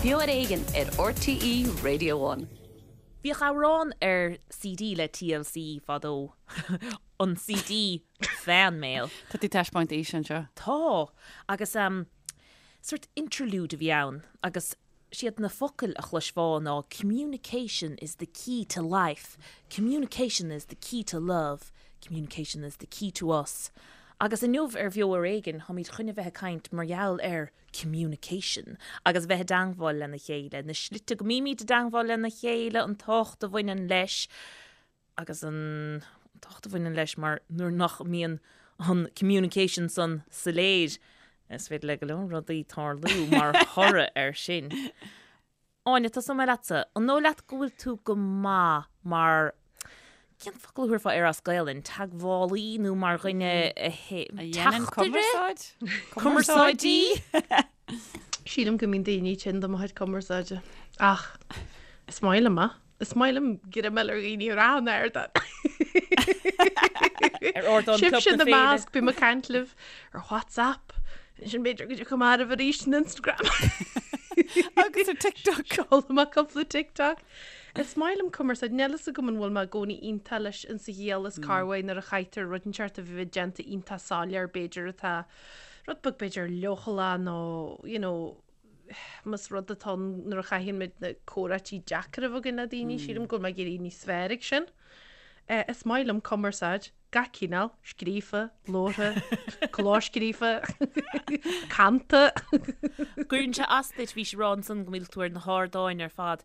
Beo ar Éigean ar RTÉ Radio One. Bhíodh amhrán ar CD le TLC fadó, an CD Fan Mail. Tá tú ag taispeáint aoise anseo. Tá! Agus sort interlude a bhí ann agus siad na focail a chloisfeá ná communication is the key to life, communication is the key to love, communication is the key to us. Agus inniu ar Bheo Ar Éigean táimid chun a bheith ag caint mar gheall ar communication agus bheith i dteangmháil lena chéile, na slite go mbímid i dteangmháil lena chéile, an tábhacht a bhaineann leis agus an tábhacht a bhaineann leis mar nuair nach mbíonn an communication san soiléir, is féidir le go leor rudaí tarlú mar thoradh air sin. Áine, tosóidh mé leatsa. An dóigh leat go bhfuil tú go maith mar, cén focal a thabharfá air as Gaelainn, teagmhálaí nó mar dhuine a dhéanann cumarsáid? Cumarsáidí? Sílim go mbíonn daoine tinn de mo chuid cumarsáide. Ach is maith liom é. Is maith liom greamáil ar dhaoine ar achan ardán. Ar ardán Club na Sibhse ina Féile. measc, bím ag caint libh ar WhatsApp. Ansin b'fhéidir go dtiocfaidh mé oraibh arís in Instagram. Agus ar TikTok. Seolaim amach cúpla TikTok. Is maith liom cumarsáid. Níl fhios agam an bhfuil mé i gcónaí iontach leis insa ghiall is corruair nuair a chaithtear rud inteacht a bheith déanta iontach soiléir b'fhéidir atá rud beag b'fhéidir leochaileach nó you know más rud atá ann nuair a chaitheann muid na comhráití deacra a bheith againn le daoine, sílim go bhfuil mé ag éirí níos fearr ag sin. Is maith liom cumarsáid, gach cineál, scríofa, labhartha, clóscríofa, canta. Cuireann sé as duit, bhís ag rá ansan go mbíodh tú ar na hardáin ar fad.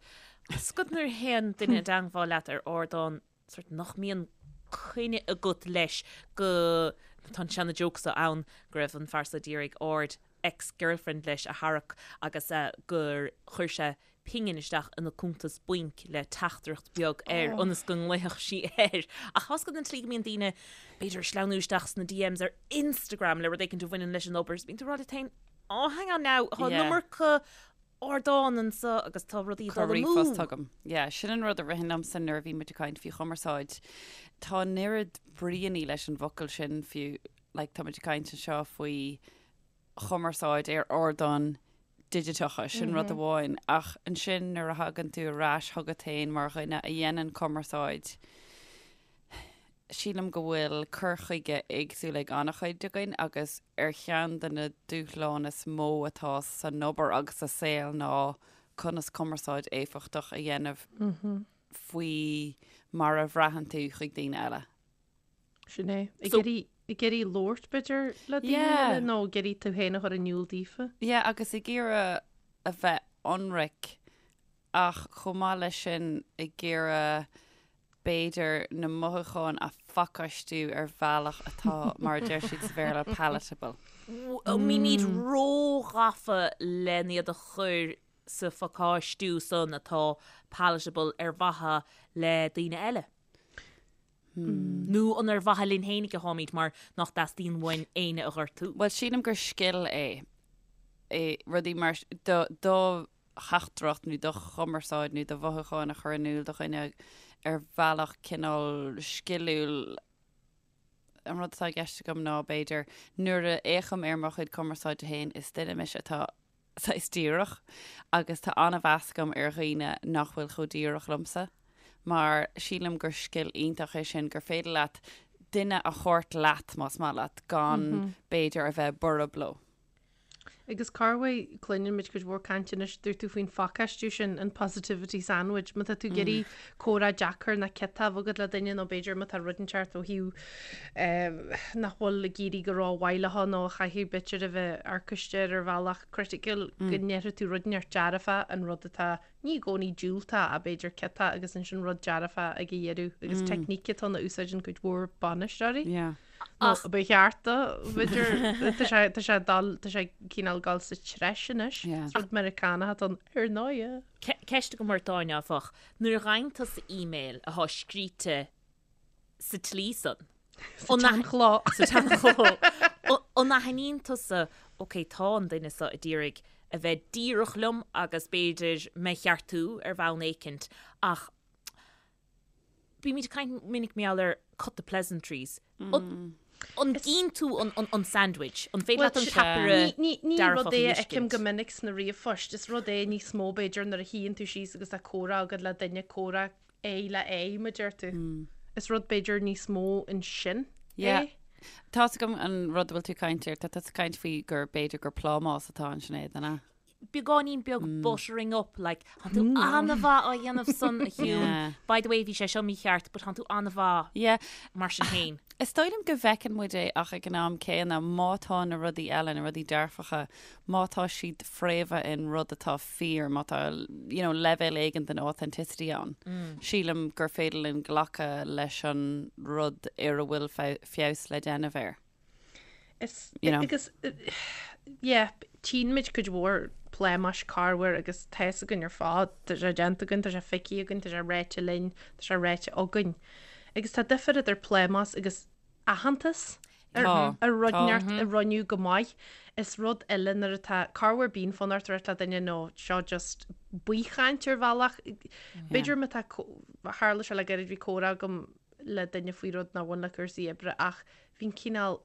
Is go nuair a théann duine i dteangmháil leat ar ardán sort nach mbíonn coinne agat leis go tá an seana joke so ann go raibh an fear so d'iarraidh aird ex-girlfriend leis a tharrac agus gur chuir sé pingin isteach ina cuntas bainc le teachtaireacht beag air ionas go nglaofadh sí air. Ach tá's agat an tslí go mbíonn daoine b'fhéidir ag sleamhnú isteach sna DMs ar Instagram le rud éicint a bhaineann leis an obair is bíonn tú ag rá leat féin, oh hang on now, tá an iomarca ardán anseo agus tá rudaí ag dul amú. Ríomhphost agam. Yeah, sin an rud a ritheann liomsa nuair a bhí muid ag caint faoi chumarsáid. Tá an oiread bríonna leis an bhfocal sin fiú, like, tá muid ag caint anseo faoi chumarsáid ar ardáin digiteacha, sin rud amháin, ach ansin nuair a thagann tú ar ais chugat féin mar dhuine a dhéanann cumarsáid, sílim go bhfuil cur chuige éagsúil ag an-chuid againn agus ar cheann de na dúshláin is mó atá san obair agus sa saol ná conas cumarsáid éifeachtach a dhéanamh faoi mar a bhraitheann tú chuig daoine eile. Sin é. Ag iarraidh ag iarraidh labhairt b'fhéidir le daoine eile nó ag iarraidh tú féin a chur in iúl daofa. Yeah, agus ag iarraidh a bheith ionraic ach chomh maith leis sin ag iarraidh b'fhéidir na mothúcháin a phacáistiú ar bhealach atá, mar a deir siad sa Bhéarla, palatable. An mbímid róghafa len iad a chur sa phacáistiú san atá palatable ar mhaithe le daoine eile? Nó an ar mhaithe linn fhéinig atáimid mar nach dteastaíonn uainn éinne a ghortú? Bhuel, sílim gur scil é, é rudaí mar, do, do theachtaireacht nó do chumarsáid nó do mhothúcháin a chur in iúl do dhuine ar bhealach cineál sciliúil. An rud atá i gceist agam ná, b'fhéidir, nuair a fhéachaim ar mo chuid cumarsáide féin, is duine mise atá saghas díreach agus tá an-mheas agam ar dhaoine nach bhfuil chomh díreach liomsa mar sílim gur scil iontach é sin gur féidir leat duine a thabhairt leat más maith leat gan b'fhéidir a bheith borb leo. Agus corruair, cluineann muid cuid mhór cainte anois, dúirt tú faoin phacáistiú sin, an positivity sandwich, má tá tú ag iarraidh comhrá deacair nó ciotach a bheith agat le duine nó b'fhéidir má tá rud inteacht ó thaobh nach bhfuil ag éirí go rómhaith leo nó a chaithfidh b'fhéidir a bheith amharcaiste ar ar bhealach criticiúil go ndéarfaidh tú rud inteacht dearfach an rud atá ní i gcónaí diúltach ach b'fhéidir ciotach agus ansin rud dearfach ag a dheireadh agus teicníc atá ann a úsáideann cuid mhór bainisteoirí. Nó ba cheart do, b'fhéidir, tá sé tá sé dul tá sé cineál dul sa treis anois. Is rud Meiriceánach atá ann ar ndóigh. Ceist agam ort Áine áfach, nuair a fhaigheann tusa email atá scríte sa tslí san. Sa tseanchló. Sa tseanchló. An aithníonn tusa, ok, tá an duine seo ag iarraidh a bheith díreach liom agus b'fhéidir mé a cheartú ar bhonn éicint, ach bímid ag caint minic mar gheall ar cut the pleasantries. An gcíonn tú an sandwich? An féidir leat an ceapaire Ní dearfach rud a é a fheicim fheiscint? go minic sna ríomhphoist. Is rud é níos mó b'fhéidir nuair a shuíonn tú síos agus tá comhrá agat le duine, comhrá aghaidh le aghaidh, mar a deir tú. Is rud b'fhéidir níos mó ansin Yeah. é. Tá's agam an rud a bhfuil tú ag caint air, tá tú ag caint faoi gur b'fhéidir gur plámás atá ansin Sinéad, an ea? beagáinín beag buttering up, like, tánn tú an-mhaith á dhéanamh san, a Shiún. By the way, bhí sé seo mícheart, but tánn tú an-mhaith Yeah. mar sin féin. Is dóigh liom go bhfeiceann muid é ach ag an am céanna, má tá na rudaí eile, na rudaí dearfacha, má tá siad fréamhaithe in rud atá fíor, má tá, you know, leibhéal éigin den authenticity ann, sílim gur féidir linn glacadh leis an rud ar a bhfuil feabhas le déanamh air. Is, You know. agus, yeah, tchíonn muid cuid mhór plámáis corruair agus tá fhios againn ar fad, tá sé déanta againn, tá sé feicthe againn, tá sé ráite linn, tá sé ráite againn. Agus tá difear idir plámás agus aitheantas ar, Tá, ar rud tá. inteacht a rinneadh go maith. Is rud eile nuair atá corruair bíonn fonn ort a ráit le duine nó seo just baothchaint ar bhealach. B'fhéidir má tá, tharla sé le gairid bhí comhrá agam le duine faoi rud nár bhain le cúrsaí oibre ach bhí an cineál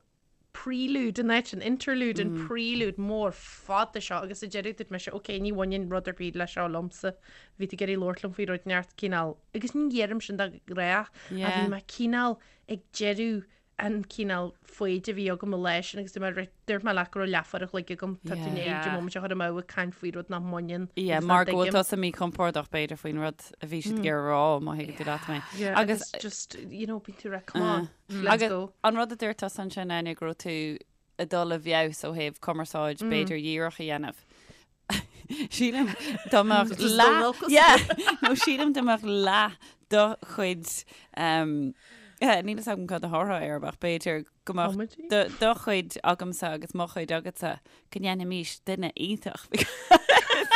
prelude in áit an interlude, an prelude mór fada seo agus sa deireadh dúirt mise ok ní bhaineann rud ar bith le seo liomsa, bhí tú ag iarraidh labhairt liom faoi rud inteacht cineál agus ní dheirim sin de ghnáth ach bhí mé cineál ag deireadh an cineál foighid a bhí agam an lá sin agus dúirt mé right, dúirt mé leat go raibh leathuair a chloig agam, tá tú i ndiaidh an móimint a chur amú ag caint faoi rud nach mbaineann Yeah, agus nach mar go bhfuil dtuigim. tusa míchompordach b'fhéidir faoin rud a bhí siad ag iarraidh a rá, má thuigeann tú leat mé. Yeah, Agus agus just, you know, bíonn tú right, come on, let's Agus go. an rud a dúirt tusa ansin, Áine, go raibh tú ag dul i bhfeabhas ó thaobh cumarsáid b'fhéidir dhíreach a dhéanamh. Sílim dá mbeadh leath Yeah, nó sílim dá mbeadh leath do chuid um, eh, níl a fhios agam cad a thabharfá air ach b'fhéidir go mbeadh Comedy? do, do chuid agamsa agus mo chuid agatsa go ndéanfaimis duine iontach.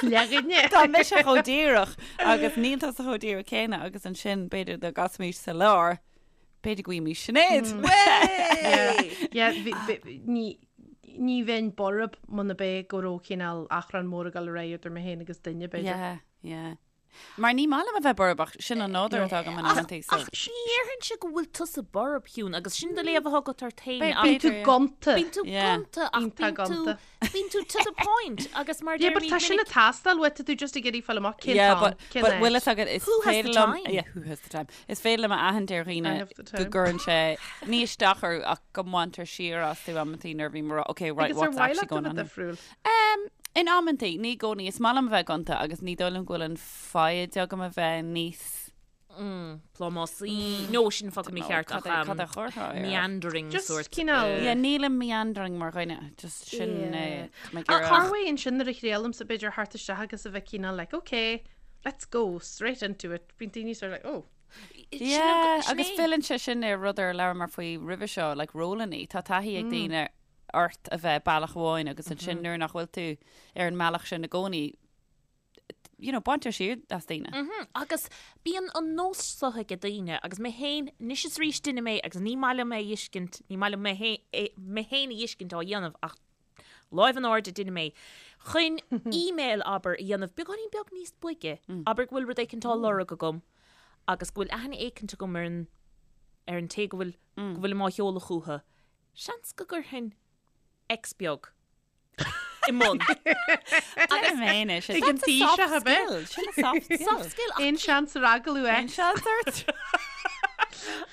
Leathdhuine. Tá mise chomh díreach agus níl tusa chomh díreach céanna agus ansin b'fhéidir dá gcasfaimis sa lár b'fhéidir go bhfaighimís Sinéad. Yeah, bhí- bhí- ní ní bheinn borb muna b'é go raibh cineál achrann mór ag dul ar aghaidh idir mé féin agus duine, b'fhéidir. Yeah, yeah. Mar ní maith liom a bheith borb ach sin an nádúr atá agam in amantaí so. Ach ní dhéarfainnse go bhfuil tusa borb, Shiún, agus sin do léamh atá agat ort féin B'fhéidir, ach Bíonn tú yeah. gonta. bíonn tú Yeah. gonta ach Iontach bíonn tú gonta. bíonn tú to the point agus mar Yeah, but deirimid tá sin minic ag teastáil uait, tá tú just ag iarraidh fáil amach cén Yeah, t-am, but, cén but áit. bhfuil fhios agat is Who has the féidir liom time? yeah, who has the time? Is féidir liom a aithint ar dhaoine I have the go time. gcuireann sé ní isteach orthu ach go mbaintear siar astu amantaí nuair a bhím ag rá okay right Agus ar what's mhaith actually leat a going bheith on here? difriúil? Um, in amantaí, ní i gcónaí. Is maith liom a bheith gonta agus ní dóigh liom go bhfuil an foighid agam a bheith níos plámásaí nó sin focal mícheart cad ach é- cad a chuirfeá air? meandering Just sort. cineál- Yeah, nílim meandering mar dhuine, just sin Yeah. é. Tá mé ag Ach iarraidh- corruair ansin nuair a thriailimse b'fhéidir theacht isteach agus a bheith cineál like, okay, let's go straight into it. Bíonn daoine sort of like, oh. Yeah, Sin agus é. filleann sé sin ar rud ar labhramar faoi roimhe seo, like rólannaí. Tá taithí ag daoine ort a bheith bealach amháin agus ansin nuair nach bhfuil tú ar an mbealach sin i gcónaí, you know, baintear siar as daoine. Agus bíonn an nós seo ag daoine, agus mé féin, anois is arís duine mé agus ní maith liom é a fheiscint, ní maith liom mé mé féin a fheiscint á dhéanamh ach láimh in airde duine mé, chun email, abair, a dhéanamh beagáinín beag níos boige, abair go bhfuil rud éicint á lorg agam agus go bhfuil aithne éicint agam ar an ar an té go bhfuil go bhfuilim á sheoladh chucu, seans go gcuirfinn X beag i mbun. Deirim féin é sin. Ag an That's a soft taoiseach, ab ea? skill. Sin a soft skill. Soft skill ach Aon seans ar agallamh Aon X. seans ort?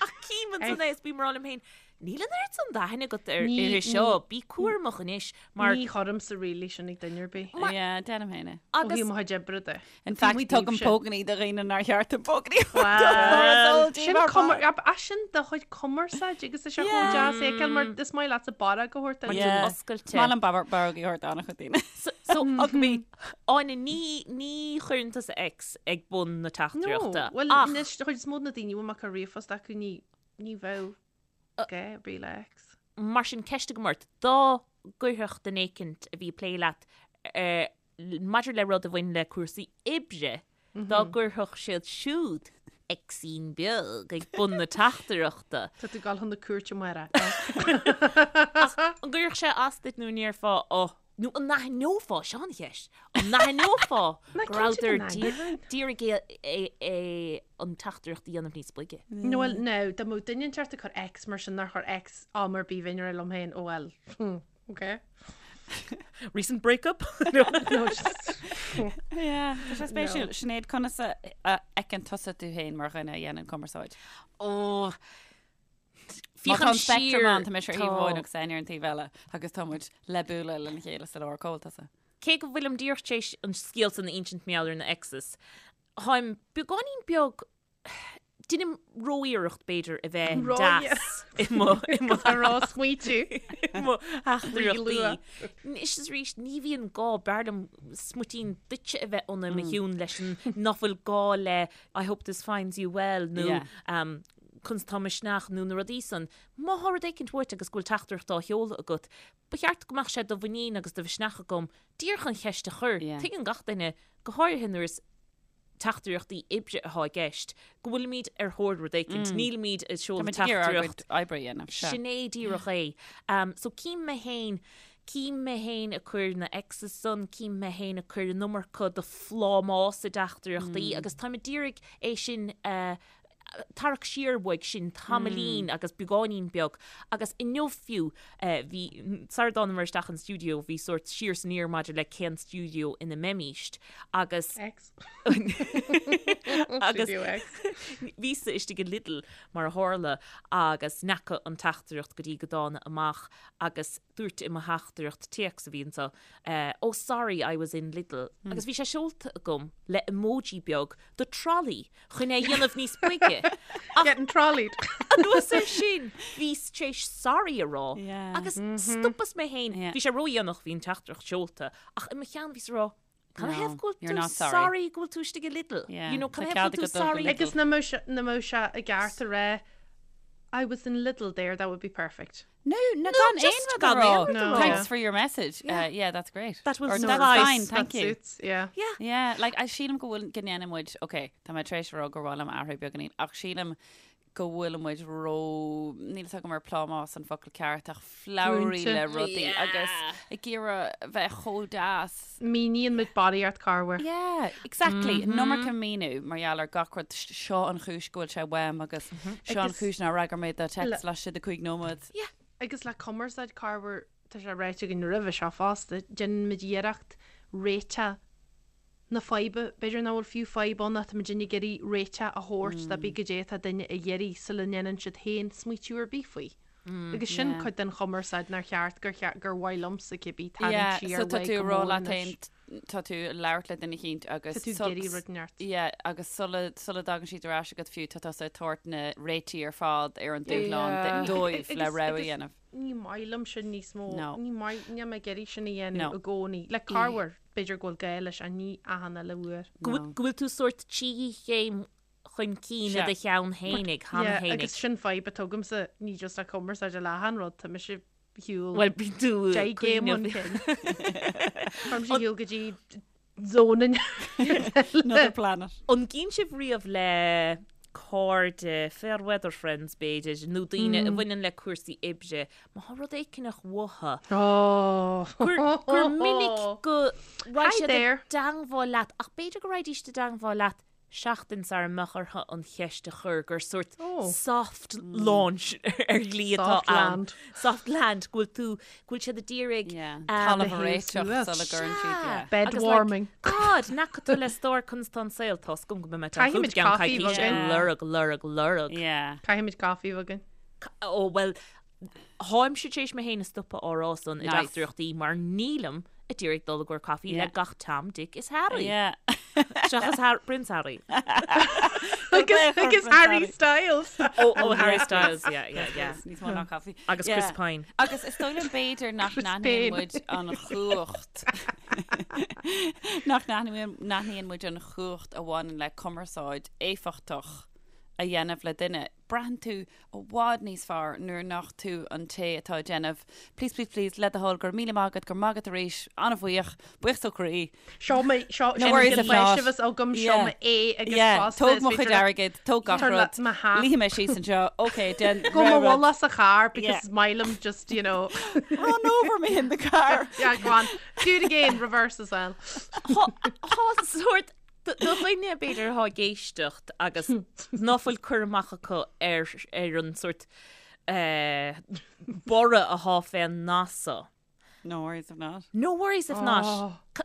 Ach cím ansan é is bím ag rá liom féin, níl an oiread san d'aithne agat ar Ní- uirthi seo, bí cúramach anois mar Ní chuirimse really sin ag duine ar bith. Yeah, deirim féin é. Ó agus thaobh mo chuid oibre de. In fact, tugaim pógainí do dhaoine nár cheart dom pógainí Well, sin cumar, ab é sin do chuid cumarsáid agus is é chomh deas é fheiceáil mar is maith leatsa barróg a thabhairt duit. Yeah. oscailte. Maith liom barróg a thabhairt d'an-chuid daoine. So, so Hug me. Áine, ní, ní chuireann tusa X ag bun na No, teachtaireachta. well, Ach, anois do chuid is mó de na daoine a bhfuil mé ag cur ríomhphost acu ní, ní bheadh gá ar bith le X. mar sin ceist agam ort, dá gcuirfeadh duine éicint a bhí ag plé leat eh, maidir le rud a bhain le cúrsaí oibre, dá gcuirfeadh siad siúd Xín beag ag bun na teachtaireachta. Tá tú ag dul chun na cúirte, a Mháire. An gcuirfeadh sé as duit nó an ndéarfá, oh, Nó an n-aithneofá, seo an cheist, an n-aithneofá go rabhadar d'iarraidh é an teachtaireacht a dhéanamh níos boige? No well, no, dá mbeadh duine inteacht ag cur X mar sin nár chuir X am ar bith bheinn ag rá liom féin, oh well, okay. Recent breakup? No, just... Yeah, tá sé spéisiúil. Sinéad, conas a fheiceann tusa tú féin mar dhuine a dhéanann cumarsáid? Ó, Má tá an spectrum ann, tá mise ar thaobh amháin agus Áine ar an taobh eile agus tá muid le bualadh lena chéile sa lár. Cá bhfuil tusa? Cé go bhfuilim díreach tar éis an scéal san a insint mar gheall ar na exes, táim beagáinín beag, deinim ró-iarracht b'fhéidir a bheith deas i mo i mo ró-smaoitiú i mo theachtaireachtaí. Anois is arís ní bhíonn gá, b'fhearr liom smuitín duitse a bheith ionam mo chiúin leis an nach bhfuil gá le I hope this finds you well nó conas tá misneach nó na rudaí san. Má thá rud éicint uait agus go bhfuil teachtaireacht á sheoladh agat, ba cheart go mbeadh sé de mhuinín agus de mhisneach agam díreach an cheist a chur. Tuigeann gach duine, go háirithe nuair is teachtaireachtaí oibre atá i gceist, go bhfuilimid ar thóir rud éicint. Nílimid ag seoladh teachtaireacht. oibre a dhéanamh. Sin é díreach é. So cím mé féin, cím mé féin ag cur na X's san, cím mé féin ag cur an iomarca de phlámás i dteachtaireachtaí agus táim ag d'iarraidh é sin a tarrac siar uaidh sin tamaillín agus beagáinín beag agus inniu fiú bhí, sara dtánamar isteach an stiúideo bhí sórt siar is aniar maidir le cén stiúideo ina mbeimíst agus X. agus Studio X. bhíos-sa istigh i Lidl mar a tharla agus n'fheaca an teachtaireacht go dtí go dtána amach agus dúirt i mo theachtaireacht téacs a bhí anseo oh sorry I was in Lidl agus bhí sé seolta agam le emoji beag de trolley chun é a dhéanamh níos boige. Ach Getting trolleyed. anuas air sin, bhíos tar éis sorry a rá agus stopas mé féin. Bhí sé ródhéanach, bhí an teachtaireacht seolta, ach i mo cheann bhíos ag rá, Canathaobh go bhfuil tú sorry go bhfuil tú istigh i Lidl? You know, canathaobh go bhfuil tú sorry? Agus nach mbeadh sé i gceart a rá I was in Lidl there, that would be perfect. No, no, gan aon rud a rá. Thanks for your message. Yeah, yeah that's great. That will Or suffice. That's fine, thank that you. Suits, yeah. Yeah. Yeah, like, I sílim go bhfuil go ndéanann muid, okay, tá mé tar éis a rá gur mhaith liom athrú beagáinín, ach sílim go bhfuil muid ró, níl fhios agam ar plámás an focal ceart, ach flowery Múinte. le rudaí Yeah. agus ag iarraidh bheith chomh deas. Míníonn muid barraíocht corruair. Yeah, exactly. An iomarca míniú mar gheall ar gach rud. Seo an chúis go bhfuil sé uaim agus seo an Agus- chúis nár fhreagair mé do text Le- laistigh de 5 nóiméad. Yeah. Agus le cumarsáid corruair, tá sé ráite againn roimhe seo fosta, déanann muid iarracht réiteach na faidhbe, b'fhéidir nach bhfuil fiú fadhb ann ach tá muid ag iarraidh réiteach a thabhairt do cibé goidé atá duine ag iarraidh sula ndéanann siad féin smaoitiú ar bith faoi. Agus sin Yeah. cuid den chumarsáid nár cheart gur cheart gur mhaith liomsa cibé tarraingt Yeah, siar so tá uaidh tú go ag rá mór leat anois. féin, tá tú ag labhairt le duine eicínt agus Tá tú ag sul- iarraidh rud inteacht. Yeah, agus sula sula dtagann siad ar ais agat fiú, tá tusa ag tabhairt na réitigh ar fad ar an dúshlán Yeah. dóibh le Agus- rogha a agus- dhéanamh. Ní maith liom sin níos mó. No. Ní maith, níl mé ag iarraidh sin a dhéanamh No. i gcónaí. Le corruair, b'fhéidir go bhfuil gá leis ach ní achan uile uair. Go bhfuil go bhfuil tú sórt trí chéim chun cinn i do cheann fhéinig, cheana Yeah, fhéinig. agus sin fadhb atá agamsa, ní just le cumarsáid le achan rud, tá mise ar shiúl Bhuel, bíonn tú deich gcéim chun cuimhneamh. cinn. Tá mise ar shiúl go dtí zone Another planet. An gcíonn sibh riamh le cairde, fair weather friends b'fhéidir, nó daoine a bhaineann le cúrsaí oibre, má thá rud éicineach uathu, Oh. gur, gur minic go raghaidh Hi siad i there. dteangmháil leat, ach b'fhéidir go raghaidís i dteangmháil leat seachtain sara mbeadh orthu an cheist a chur, gur sórt soft launch ar shlí atá Soft ann. land. Soft land, go bhfuil tú, go bhfuil siad ag iarraidh Yeah, um, talamh a thaobh réiteach suas. sula gcuireann siad, yeah. Bed Agus, like, warming. God, nach tú le stór conas tá an saol, tá 's agam go mbeidh mé Caithfimid chugat i gceann caife coicíse bheag. lorg, lorg, lorg. Yeah. Caithfimid caife bheag. Ó, bhuel, Tháimse tar éis mé féin a stopadh á rá san i Nice. dteachtaireachtaí mar nílim ag iarraidh dul i gcomhair caife Yeah. le gach Tom, Dick is Harry. Yeah. Seachas Har Prince Harry. Agus agus Harry Styles. Ó, ó Harry Styles, yeah, yeah, yeah. Níos mó ná caife. Agus Yeah. Chris Pine. Agus is dóigh liom b'fhéidir nach Chris n-aithníonn Pine. muid an chumhacht nach n-aithníonn muid an chumhacht a bhaineann le cumarsáid éifeachtach. a dhéanamh le duine, braitheann tú i bhfad níos fearr nuair nach tú an té atá ag déanamh please, please, please, le do thoil, go raibh míle maith agat, go raibh maith agat arís, an-bhuíoch, buíochas ó chroí. Seo mo, seo, No worries if not. Sin an agam, seo mo é agus Yeah, fosta. tóg mo chuid airgid, tóg gach rud, luífidh mé síos anseo, ok, déan Go mo bhulla sa charr because is maith liom just, you know. Run over me in the car. Yeah, go on. Do it again, reverse as well. Tá sórt Do dhuine, b'fhéidir, atá ag éisteacht agus ná fuil cur amach acu ar ar an sórt borradh atá fén nath so. No worries if not. No worries if not.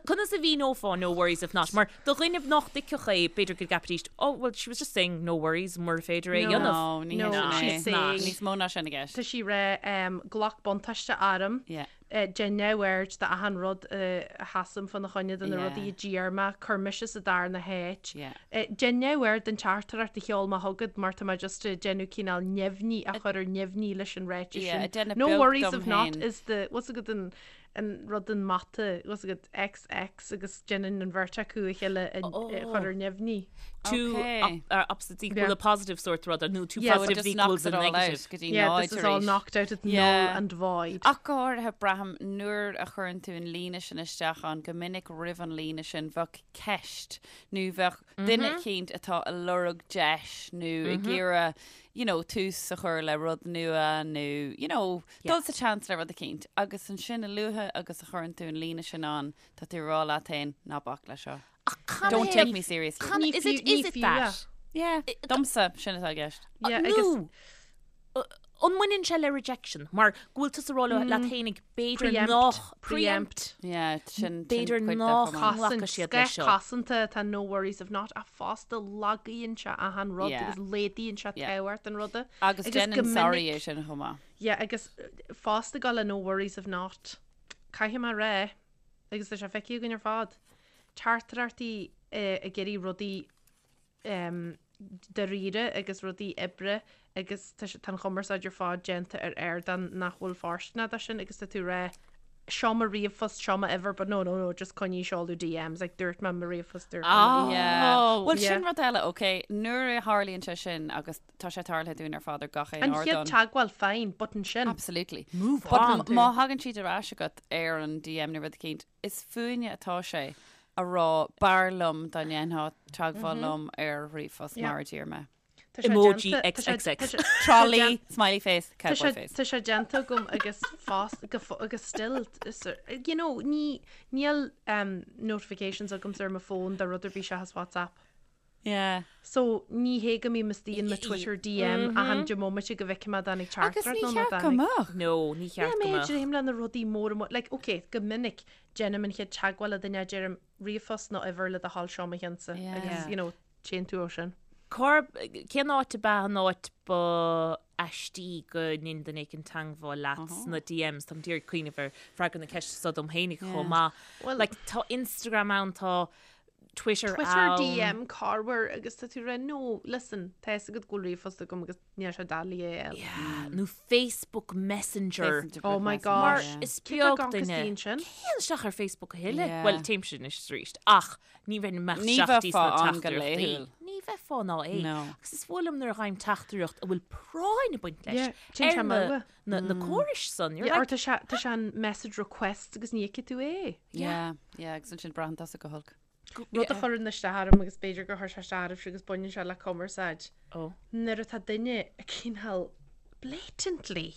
Conas a mhíneofá no worries if not? Mar do dhuine nach dtuigfeadh é, b'fhéidir go gceapfaidís, oh, well, she was just saying no worries mura féidir é a dhéanamh. No, ní hé No, sin é. she's saying. Níos mó ná sin i gceist. Tá sí ag rá, glac buntáiste orm. Yeah. Déan neamhaird d'achan rud a sheasaim fána choinne, de na rudaí a d'iarr mé, cuir mise sa darna háit. Déan neamhaird den teachtaireacht a sheol mé chugat mar tá mé just ag déanamh cineál neamhní a chur ar neamhní leis an ráiteas sin. No worries if not is the, what's agat an an rud an mata, what's agat XX agus déanann an bheirt acu a chéile a chur ar neamhní. Two opposites equal a positive sort rud, nó two positives equals a negative. Go dtí Yeah, this is all knocked out at null and void. Ach go háirithe, braithim nuair a chuireann tú an líne sin isteach ann, go minic roimh an líne sin bheadh ceist nó bheadh duine eicínt atá ag lorg deis nó ag iarraidh, you know, tús a chur le rud nua nó, you know, dul sa tseans le rud eicínt. Agus ansin a luaithe agus a chuireann tú an líne sin ann, tá tú ag rá leat féin, ná bac leis seo. Ach Don't take me seriously. Can, is it, is it that? Yeah, domsa, sin atá i gceist. Yeah, agus. Nó, an mbaineann sé le rejection? Mar go bhfuil tusa ag rá leat fhéinig b'fhéidir nach. Preempt. Yeah, sin B'fhéidir cuid de nach chomh maith. nglacfaidh siad leis seo. Cosanta atá no worries if not ach fosta lagaíonn sé achan rud Yeah. agus laghdaíonn sé Yeah. tábhacht an ruda. Agus Agus go déanann sorry minic- é sin chomh maith. Yeah, agus fosta go le no worries if not. Caithfidh mé a rá, agus tá sé feicthe againn ar fad, teachtaireachtaí ag iarraidh rudaí dáiríre agus rudaí oibre agus tá tá an chumarsáid ar fad déanta ar ardán nach bhfuil fóirsteanach dó sin agus tá tú ag rá seo mo ríomhphost, seo m'uimhir but no, no, no, just coinnigh seoladh DMs, like dúirt mé mo ríomhphost, dúirt mé mo Yeah. Bhuel Yeah. sin rud eile, ok, nuair a tharlaíonn sé sin agus tá sé tarlaithe dúinn ar fad ar gach aon An chéad ardán. teagmháil, fine, but ansin. Absolutely. Move But on. má thagann siad ar ais agat ar an DM nó rud eicínt, is fúinne atá sé a rá b'fhearr liom dá ndéanfá teagmháil liom ar ríomhphost mar a d'iarr mé. Tá sé Emoji déanta- tá sé- XXX. tá sé- Trolley, smiley face, Tá cowboy sé face. tá sé déanta agam agus fós go fo- agus still is- you know ní níl um, notifications agamsa ar mo fón do rud ar bith seachas WhatsApp. Yeah. So ní hé go mbím istigh in mo Twitter DM achan deich mbomaite go bhfeicfidh mé an dtáinig Agus teachtaireacht ní nó ná cheart go dtáinig. mbeadh. No, ní Yeah, cheart go mé mbeadh. dréim le na rudaí móra mo like ok go minic déanaim an chéad teagmháil le duine deirim ríomhphost nó uimhir le do thoil seo mo cheannsa Yeah. agus you know téann tú ó sin. Cár, cén áit ab ea an áit ba aistí go ndein duine éicint teagmháil leat sna DMs? Táim d'iarraidh cuimhneamh ar freagra na ceiste seo dom fhéinig chomh maith. Well- Like tá Instagram ann, tá Twitter Twitter ann. DM corruair agus tá tú ag rá no listen tá fhios agat go bhfuil ríomhphost agam agus níl sé doiligh é a fháil. Yeah, nó Facebook Messenger. Oh my Mar gosh. is Cé tá beag gan duine. costín sin? Téann isteach ar Facebook a thuilleadh. Yeah. Bhuel, téimse anois arís. Ach ní bheinn amach Ní isteach bheifeá sna ann go teachtaireachtaí. laethúil. Ní bheifeá ná é. No. Agus is fuath liom nuair a fhaighim teachtaireacht a bhfuil práinn ag baint leis Yeah, téann sé ar na, amú. na, na córais san. You're Yeah, or like, tá sé tá sé an message request agus ní fheicfidh tú é. Yeah, yeah, agus ansin braitheann tusa go holc. Rud a chuireann isteach orm agus b'fhéidir gur chuir sé isteach oraibhse agus baineann sé le cumarsáid. Oh. Nuair atá duine ag cineál blatantly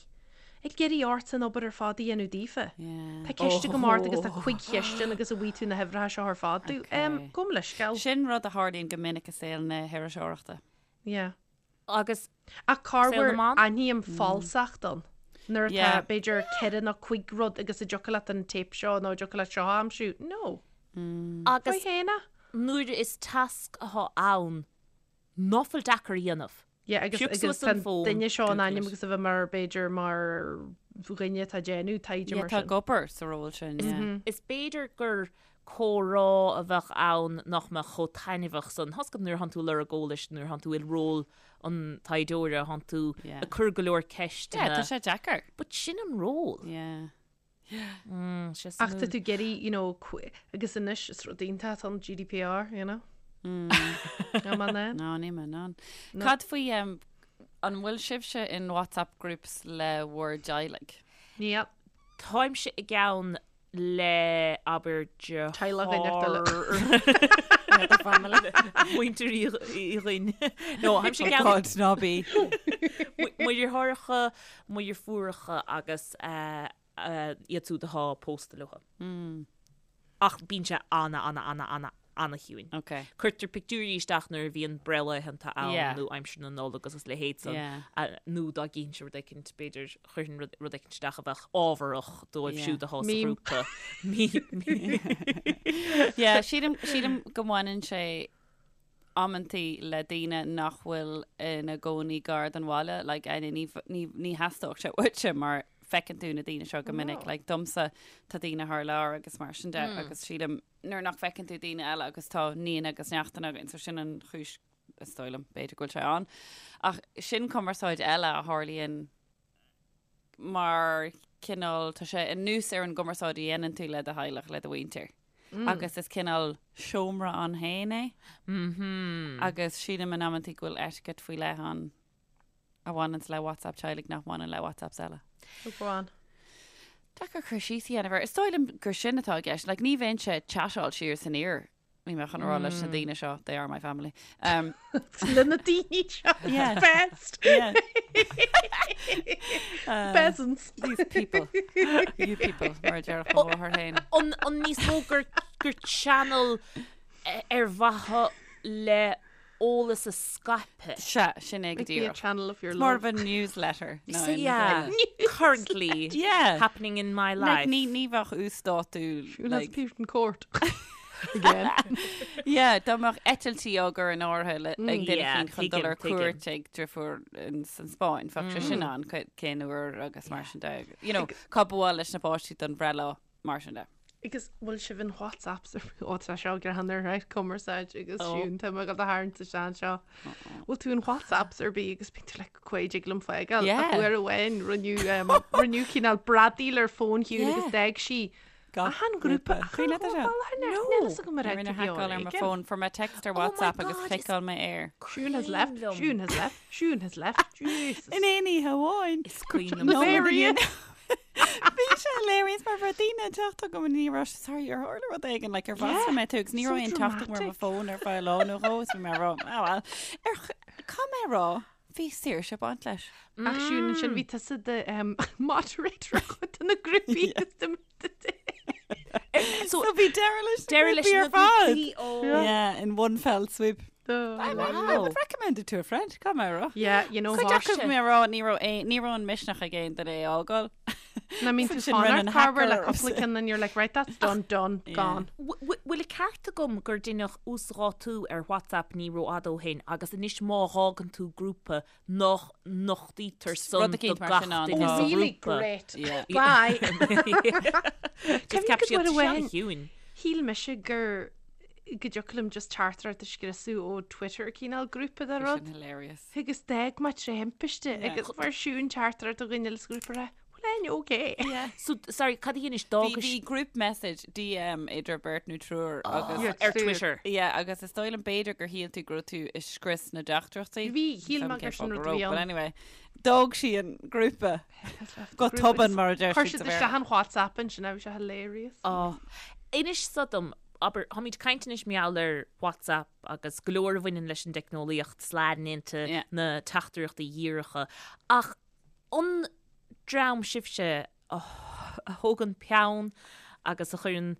ag iarraidh ort an obair ar fad a dhéanamh daofa. Yeah. Tá ceist agam ort agus tá cuig cheist ann agus an bhfaighidh tú na huimhreacha seo ar fad domh. Okay. Gabh mo leithscéal. Sin rud a tharlaíonn go minic i saol na hiriseoireachta. Yeah. Agus Ach Saol corruair na mban? aithním falsacht ann. Nuair atá, Yeah. b'fhéidir, ceithre nó cuig rud agus an dtiocfadh leat an téip seo nó an dtiocfadh leat seo a aimsiú. No. Agus Faoi fhéin é. nuair is tasc atá ann ná fuil deacair a dhéanamh. Yeah, agus Pioc agus suas tá an fón, duine seo in Google ainm it. agus a bheith mar b'fhéidir mar dhuine atá ag déanamh taighde Yeah, mar tá sin. ag obair sa ról sin, yeah. Is b'fhéidir gur comhrá a bheadh ann nach mbeadh chomh taitneamhach san. Tá's agat nuair a thánn tú ag lorg eolais, nuair a thánn tú i ról an taighdeora, thánn tú Yeah. ag cur go leor Yeah, ceisteanna. tá sé deacair. But sin an ról. Yeah. Mm, sé Ach tá suimiúil. tú ag iarraidh, you know, agus anois is rud iontach atá an GDPR, you know. Níl mé in ann. No, níl mé in ann. Cad faoi, an bhfuil sibhse in WhatsApp groups le bhur dteaghlaigh? Níl. Táimse i gceann le, abair, deartháir. Teaghlach éineacht eile. Family. Muintir Uí Dhuinn. No, táimse i gceann. God, ná bí. Mo dheartháireacha, mo dheirfiúracha agus iad siúd atá pósta leo. Ach bíonn sé ana, ana, ana, ana, ana-chiúin. Ok. Cuirtear pictiúirí isteach nuair a bhíonn breithlaethanta ann Yeah. nó aimsir na Nollag agus a leithéid san. Yeah. Nó dá gcífinnse rud éicint, b'fhéidir, chuirfinn rud, rud éicint isteach a bheadh ábharach dóibh Yeah. siúd atá sa Meme. ghrúpa. Meme. Yeah, sílim, sílim go mbaineann sé amantaí le daoine nach bhfuil ina gcónaí gar don bhaile, like, Áine, ní, ní, ní theastódh sé uaitse mar feiceann tú na daoine seo go minic, like, domsa tá daoine thar lear agus mar sin de agus sílim nuair nach bhfeiceann tú daoine eile agus tá nianna agus neachtanna againn, so sin an chúis is dóigh liom, b'fhéidir go bhfuil sé ann. Ach sin cumarsáid eile a tharlaíonn mar cineál, tá sé anuas ar an gcumarsáid a dhéanann tú le do theaghlach, le do mhuintir. Agus is cineál seomra ann féin é. Agus sílim in amantaí go bhfuil etiquette faoi leith ann a bhaineanns le WhatsApp teaghlaigh nach mbaineann le WhatsApps eile. Oh, go on. Deacair cur síos a dhéanamh air. Is dóigh liom gur sin atá i gceist. Like, ní bheinnse ag chatáil siar is aniar. Níl mé chun a rá leis na daoine seo, they are my family. Um, Le na daoine seo. Yeah. Best. yeah. Peasants. These people. You people, mar a déarfadh mo mháthair féin. An, an níos mó gur, gur channel ar mhaithe le eolas a scaipeadh. Sea, sin é go Like be a díreach. channel of your It's more love. of a newsletter. ná So aon yeah, rud eile. currently Yeah. happening in my Like, life. ní, ní bheadh uasdátú. Siún has Like, appeared in court. Again. yeah, dá mbeadh eitiltí á gcur in áirithe le- ag duine Yeah, eicínt chun dul tuigim, ar tuigim. cuairt ag deirfiúr in san Spáinn, bheadh sé sin ann cén uair agus mar sin de. You know, cá ba mhaith leis na páistí don bhreithlá mar sin de. Agus bhfuil sibh in WhatsApps ar ó tá seo greannmhar right cumarsáid agus Siún tá mé ag dul do tharraingt isteach anseo. Bhfuil tú in WhatsApps ar bith agus bíonn tú like cá dtig liom fágáil Yeah. ach uair amháin rinneadh um, rinneadh cineál bradaíl ar fón Shiún Yeah. agus d'fhág sí Gach achan grúpa grúpa. achan Cuimhin leat é seo? No. Níl fhios agam ar Rinne haiceáil ar mo fón fuair mé text ar Oh my WhatsApp agus God, is- chliceáil mé air. Siún has left, Cuimhin liom. Siún has left, Siún has left. Jesus. In aon oíche amháin. Is cuimhin liom. Hilarious. Bhí sé hilarious mar bhí daoine ag teacht chugam ní raibh sé sorry ar tharla rud éigin like ar mhaslaigh mé tú agus ní so raibh aon teacht agam ar mo dramatic. fón ar feadh lá nó dhó is bhí mé ag rá ah well ar ch- caithfidh mé a rá bhí saoirse ag baint leis. Ach Siún ansin bhí tusa do um, moderator ar chuid de na grúpaí agus de So So bhí deireadh leis na deireadh leis grúpaí na ar fad. grúpaí, oh. Yeah, in one fell swoop. I, I would recommend it to a friend, caithfidh mé a rá. Yeah, you know Cuid what? acu mé a rá ní raibh aon- ní raibh an misneach ag aon duine é a fhágáil. I mean, So tú sin rinne fanacht an carver le hacker cúpla ceann and you're like, right, that's done, done, gone. Bhfuil an ceart agam gur deineadh uasdátú ar WhatsApp ní rófhada ó shin agus anois má fhágann tú grúpa nach nochtaítear san Rud do eicínt mar gach sin ann, duine tá. sa Really ghrúpa. great. Yeah. Bye. Just ceap Cuimhnigh siad go bhfuil seo chiúin. Shíl mise gur go dtiocfadh liom just teachtaireacht a scriosadh ó Twitter cineál grúpa de rud. Sin hilarious. Agus d'fhág mé tré thimpiste agus fuair Siún teachtaireacht ó dhuine eile sa ghrúpa a rá, bhfuil éinne okay? Yeah. So, sorry, cad a dhéanais Bhí d'fhágais bhí group message DM idir beirt nó triúr agus Yeah. ar Twitter? Yeah, agus is dóigh liom b'fhéidir gur shíl tú go raibh tú ag scrios na dteachtaireachtaí. Bhí, shíl mé Cén gur fáth sin go rud a raibh, bhí But ann. anyway, d'fhág sí an grúpa go tobann mar a deir Chuir siad siad sa Bhéarla. isteach an WhatsApp ansin, bhí sé hilarious. Oh. Inis so dom, abair, táimid ag caint anois mar gheall ar WhatsApp agus go leor a bhaineann leis an dteicneolaíocht sliding into Yeah. na teachtaireachtaí dhíreacha. Ach an dream sibhse a thógann peann agus a chuireann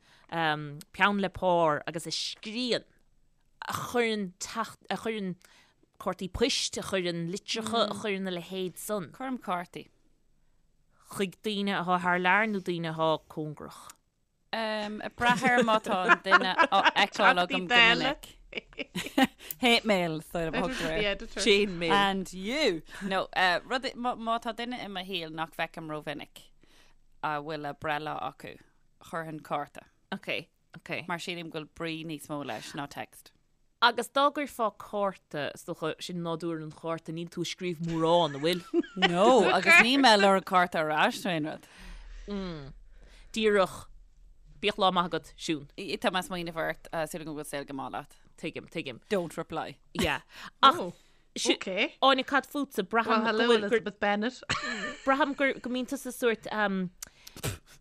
peann le pár agus a scríonn, a chuireann teacht, a chuireann cártaí poist, a chuireann litreacha, a chuireann a leithéid san Cuirim cártaí. chuig daoine atá thar lear nó daoine atá cóngarach? Ag brath ar má tá an duine á fheiceáil agam go minic. Hate mail, is dóigh liom a thugtar air. Chain mail. And you! No, rud, má tá duine i mo shaol nach bhfeicim rómhinic a bhfuil a breithlá acu, chuirfinn cárta. Ok, ok. Mar sílim go bhfuil brí níos mó leis ná text. Agus dá gcuirfeá cárta, is dócha, sin nádúr an chárta, níl tú ag scríobh mórán, an bhfuil? No, agus níl mé ag lorg cárta ar ais nó aon rud. Díreach. Bíodh lá maith agat, Siún. Tá mé ag smaoineamh ort, súil agam go bhfuil saol go maith leat. Tuigim, tuigim. Don't reply. Yeah. Ach, Oh, si- okay. Áine, cad fútsa? Well, Braithim hello, go bhfuil- gur- Elizabeth Bennet. braithim gur go mbíonn tusa sórt um,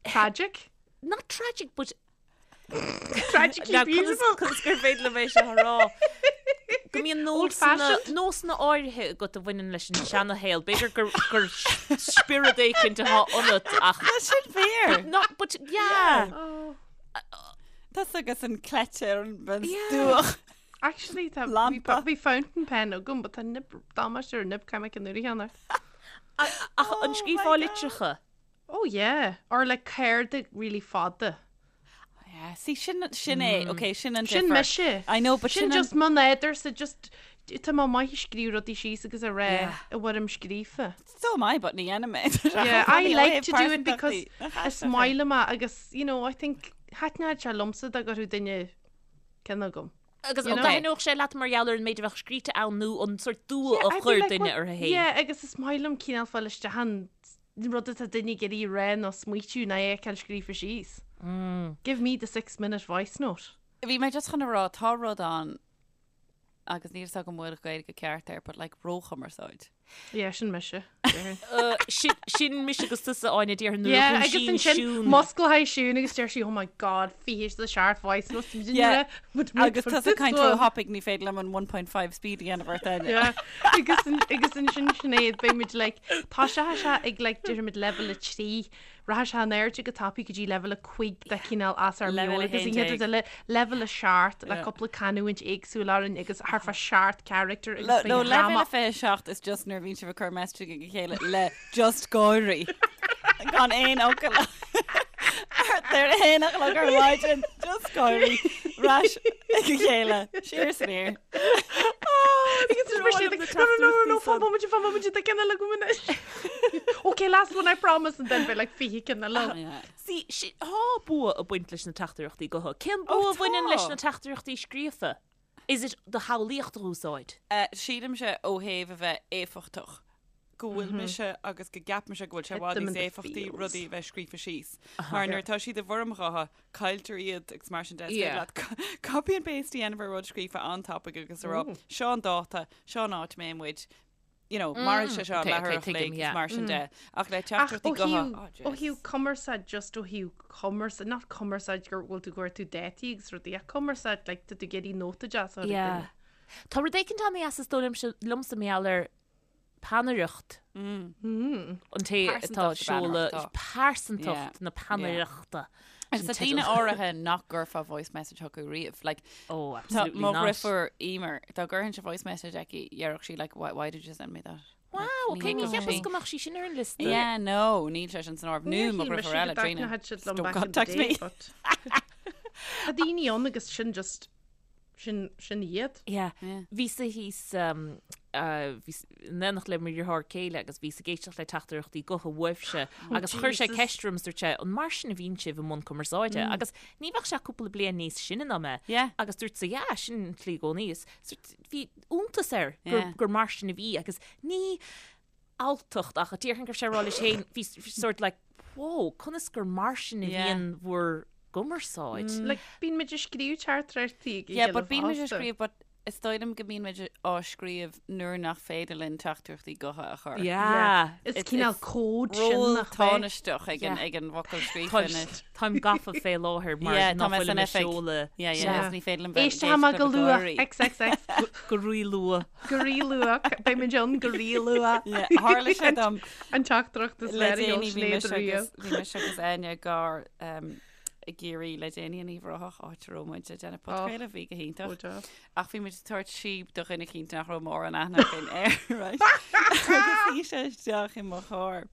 Tragic. not tragic, but Tragically Now, conas beautiful. conas gur féidir liom é seo a rá? Go mbíonn nósanna Old-fashioned. nósanna áirithe agat a bhaineann leis an seanashaol. B'fhéidir gur gur spiorad éicint atá ionat ach Tá sin fíor. not but yeah. Oh. Tá agus an cleite ar an bhean Yeah. stuach. Actually, tá Lampa. bhí fountain pen agam, but tá nib damáiste ar nib ceimic an uair cheana. Ach an Oh scríobhfá my litreacha? Oh yeah, or like cártaí really fada. Yeah, see sin sin é, okay, sin an Sin difear. mise. I know, but Sin sin an- just mo nádúrsa just tá mé maith ag scríobh rudaí síos agus a rá Yeah. i bhfoirm scríofa. So am I, but ní dhéanaim é. Yeah, I like to do it because is maith liom é agus you know, I think thaitneodh sé liomsa dá gcuirfeadh duine ceann agam. Agus You an know? dtaitneodh sé leat mar gheall ar an méid a bheadh scríte ann nó an sórt dua Yeah, a I'd be chuir like, duine what- uirthi féin? Yeah, agus is maith liom cineál fáil isteach an rud atá duine ag iarraidh a rá nó smaoitiú nó é a fheiceáil scríofa síos. Give me the six minute voice note. Bhí mé just chun a rá tá rud ann agus níl a fhios agam an bhfuil Gaeilge ceart air, but like róchumarsáid. Yeah, sin mise. Sin sin mise agus tusa Áine déarfainn nuair a Yeah, agus dhúisíonn ansin Siún. musclaíonn Siún agus deir sí, oh my god, 27 voice notes Yeah. Agus Agus tá sa caint róthapaidh ní féidir liom an 1.5 speed a dhéanamh ort Áine. Yeah, agus an- agus ansin Sinéad beidh muid like tá sé sé ag like deirimid level 3 Rachaidh sé in airde go tapaidh go dtí leibhéal 5 de chineál as ár Leibhéal meabhair agus an 11. chéad rud eile leibhéal 7 le cúpla canúint éagsúil orainn agus thart fá seacht character agus No, beidh no, dráma leibhéal 27 is just nuair a bhíonn sibh ag cur message ag a chéile le just gáirí. Gan aon fhocal. Thart ar a haon a chlog ar maidin, just gáirí. Ar ais ag a chéile. Siar is aniar. Agus is mar siad ag, no, no, no, no, no, fan bomaite, fan bomaite, tá ceann eile agam anois. Okay, last one, I promise, and then beidh like 20 ceann eile. Yeah. See, si, tá bua ag baint leis na teachtaireachtaí gutha. Cén Oh, bua a bhaineann leis tá. na teachtaireachtaí scríofa? Is it do shamhlaíocht a úsáid? Eh, sílimse ó thaobh a bheith éifeachtach go bhfuil mise agus go gceapaimse go bhfuil sé i Hit bhfad them in níos the éifeachtaí feels. rudaí a bheith scríofa síos. Mar nuair atá siad i bhfoirm ghutha, cailltear iad agus mar sin de. Is féidir Yeah. leat copy and paste a dhéanamh ar rud scríofa an-tapaidh agus a rá, seo an dáta, seo an áit a mbeidh muid, you know, mairfidh sé seo Okay, leathuair okay, a chloig tuigim, agus yeah. mar sin de. Ach le Ach teachtaireachtaí ó gutha, thaobh oh, ó jeez. thaobh cumarsáid just ó thaobh cumarsáid not cumarsáid gur bhfuil tú gur tú dátaí agus rudaí ach cumarsáid like tá tú ag iarraidh nóta deas a chur ag Yeah. duine. Tá rud éicint an-deas is dóigh liomsa liomsa mar gheall ar peannaireacht. An té atá Pearsantacht seoladh na peannaireachta. pearsantacht Yeah. na peannaireachta. Agus tá daoine áirithe nach gcuirfeá voice message chucu riamh. Like, Oh, tá absolutely mo not. dheirfiúr Emer, dá gcuirfinnse voice message aici, dhéarfadh sí like, why, why did you send me that? Wow, Like, okay, ní ní thuigim cheapas sí. go mbeadh sí sin ar an liosta. Yeah, no, níl sé sin san áireamh. Nó Níor mo shíl mise dheirfiúr go eile, Trina. dtaitneodh siad liom Don't back in the contact day, me. but Tá daoine ann agus sin just Sin, sin iad. Yeah. Yeah. Bhíos-sa thíos, um, uh, bhíos in éineacht le mo dheartháir céile agus bhíos ag éisteacht le teachtaireachtaí gutha uaibhse agus chuir sé Jesus. ceist orm is dúirt sé, an mar sin a bhíonn sibh i mbun cumarsáide? Agus ní bheadh sé cúpla bliain níos sine ná mé. Yeah. Agus dúirt sé, yeah, sin an tslí i gcónaí. Is sort- bhí iontas air gur, Yeah. gur mar sin a bhí agus ní alltacht ach déarfainn go raibh sé ag rá leis féin, bhí sort like, whoa, conas gur mar sin a Yeah. bhíonn bhur gcumarsáid. Like, bíonn muid ag scríobh teachtaireachtaí ag a Yeah, chéile but bíonn muid ag fosta. scríobh, but is dóigh liom go mbíonn muid á scríobh nuair nach féidir linn teachtaireachtaí gutha a chur. Yeah. Is It's- cineál it's cód sin Ról nach bhfuil. tánaisteach ag an Yeah. ag an bhfocal scríofa anois. Táim gafa fé láthair mar Yeah, tá nach mé bhfuil san mé oifig. seoladh Yeah, yeah, Yeah. is ní féidir liom bheith Éist amach go luath, XXX, go rí-luath. go rí-luath, beidh muid ann go rí-luath. Yeah, tharla sé dom An teachtaireacht is le fearr a déanaí sheol bhí Sinéad mise riamh. agus bhí mise agus Áine i gcarr um, i gCiarraí le déanaí in Uíbh Ráthach áit a raibh muid ag déanamh podchraoladh bhí go hiontach. Ó, deas. Ach bhí muid ag tabhairt síob do dhuine eicínt nach raibh mórán aithne againn air, right? Agus shuigh sé isteach i mo charr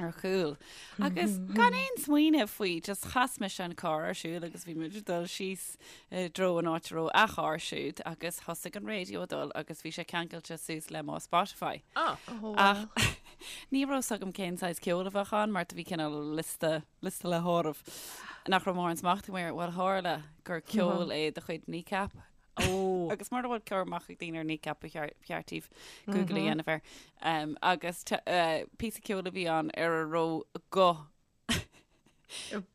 ar chúl. Agus gan aon smaoineamh faoi, just chas mise an carr ar siúl agus bhí muid ag dul síos i dtreo an áit a raibh a charr siúd agus thosaigh an raidió ag dul agus bhí sé ceangailte suas le mo Spotify. Ah. Oh, Ach ní raibh 's agam cén saghas ceoil a bheadh ann mar do bhí cineál liosta, liosta le háireamh nach raibh mórán smacht agam air. Bhuel tharla gur ceol é de chuid Kneecap. Ó. Agus mura bhfuil cur amach ag daoine ar Kneecap ba cheart ba cheart daoibh Google a dhéanamh air. Um, agus te- eh, píosa ceoil a bhí ann ar a raibh guth.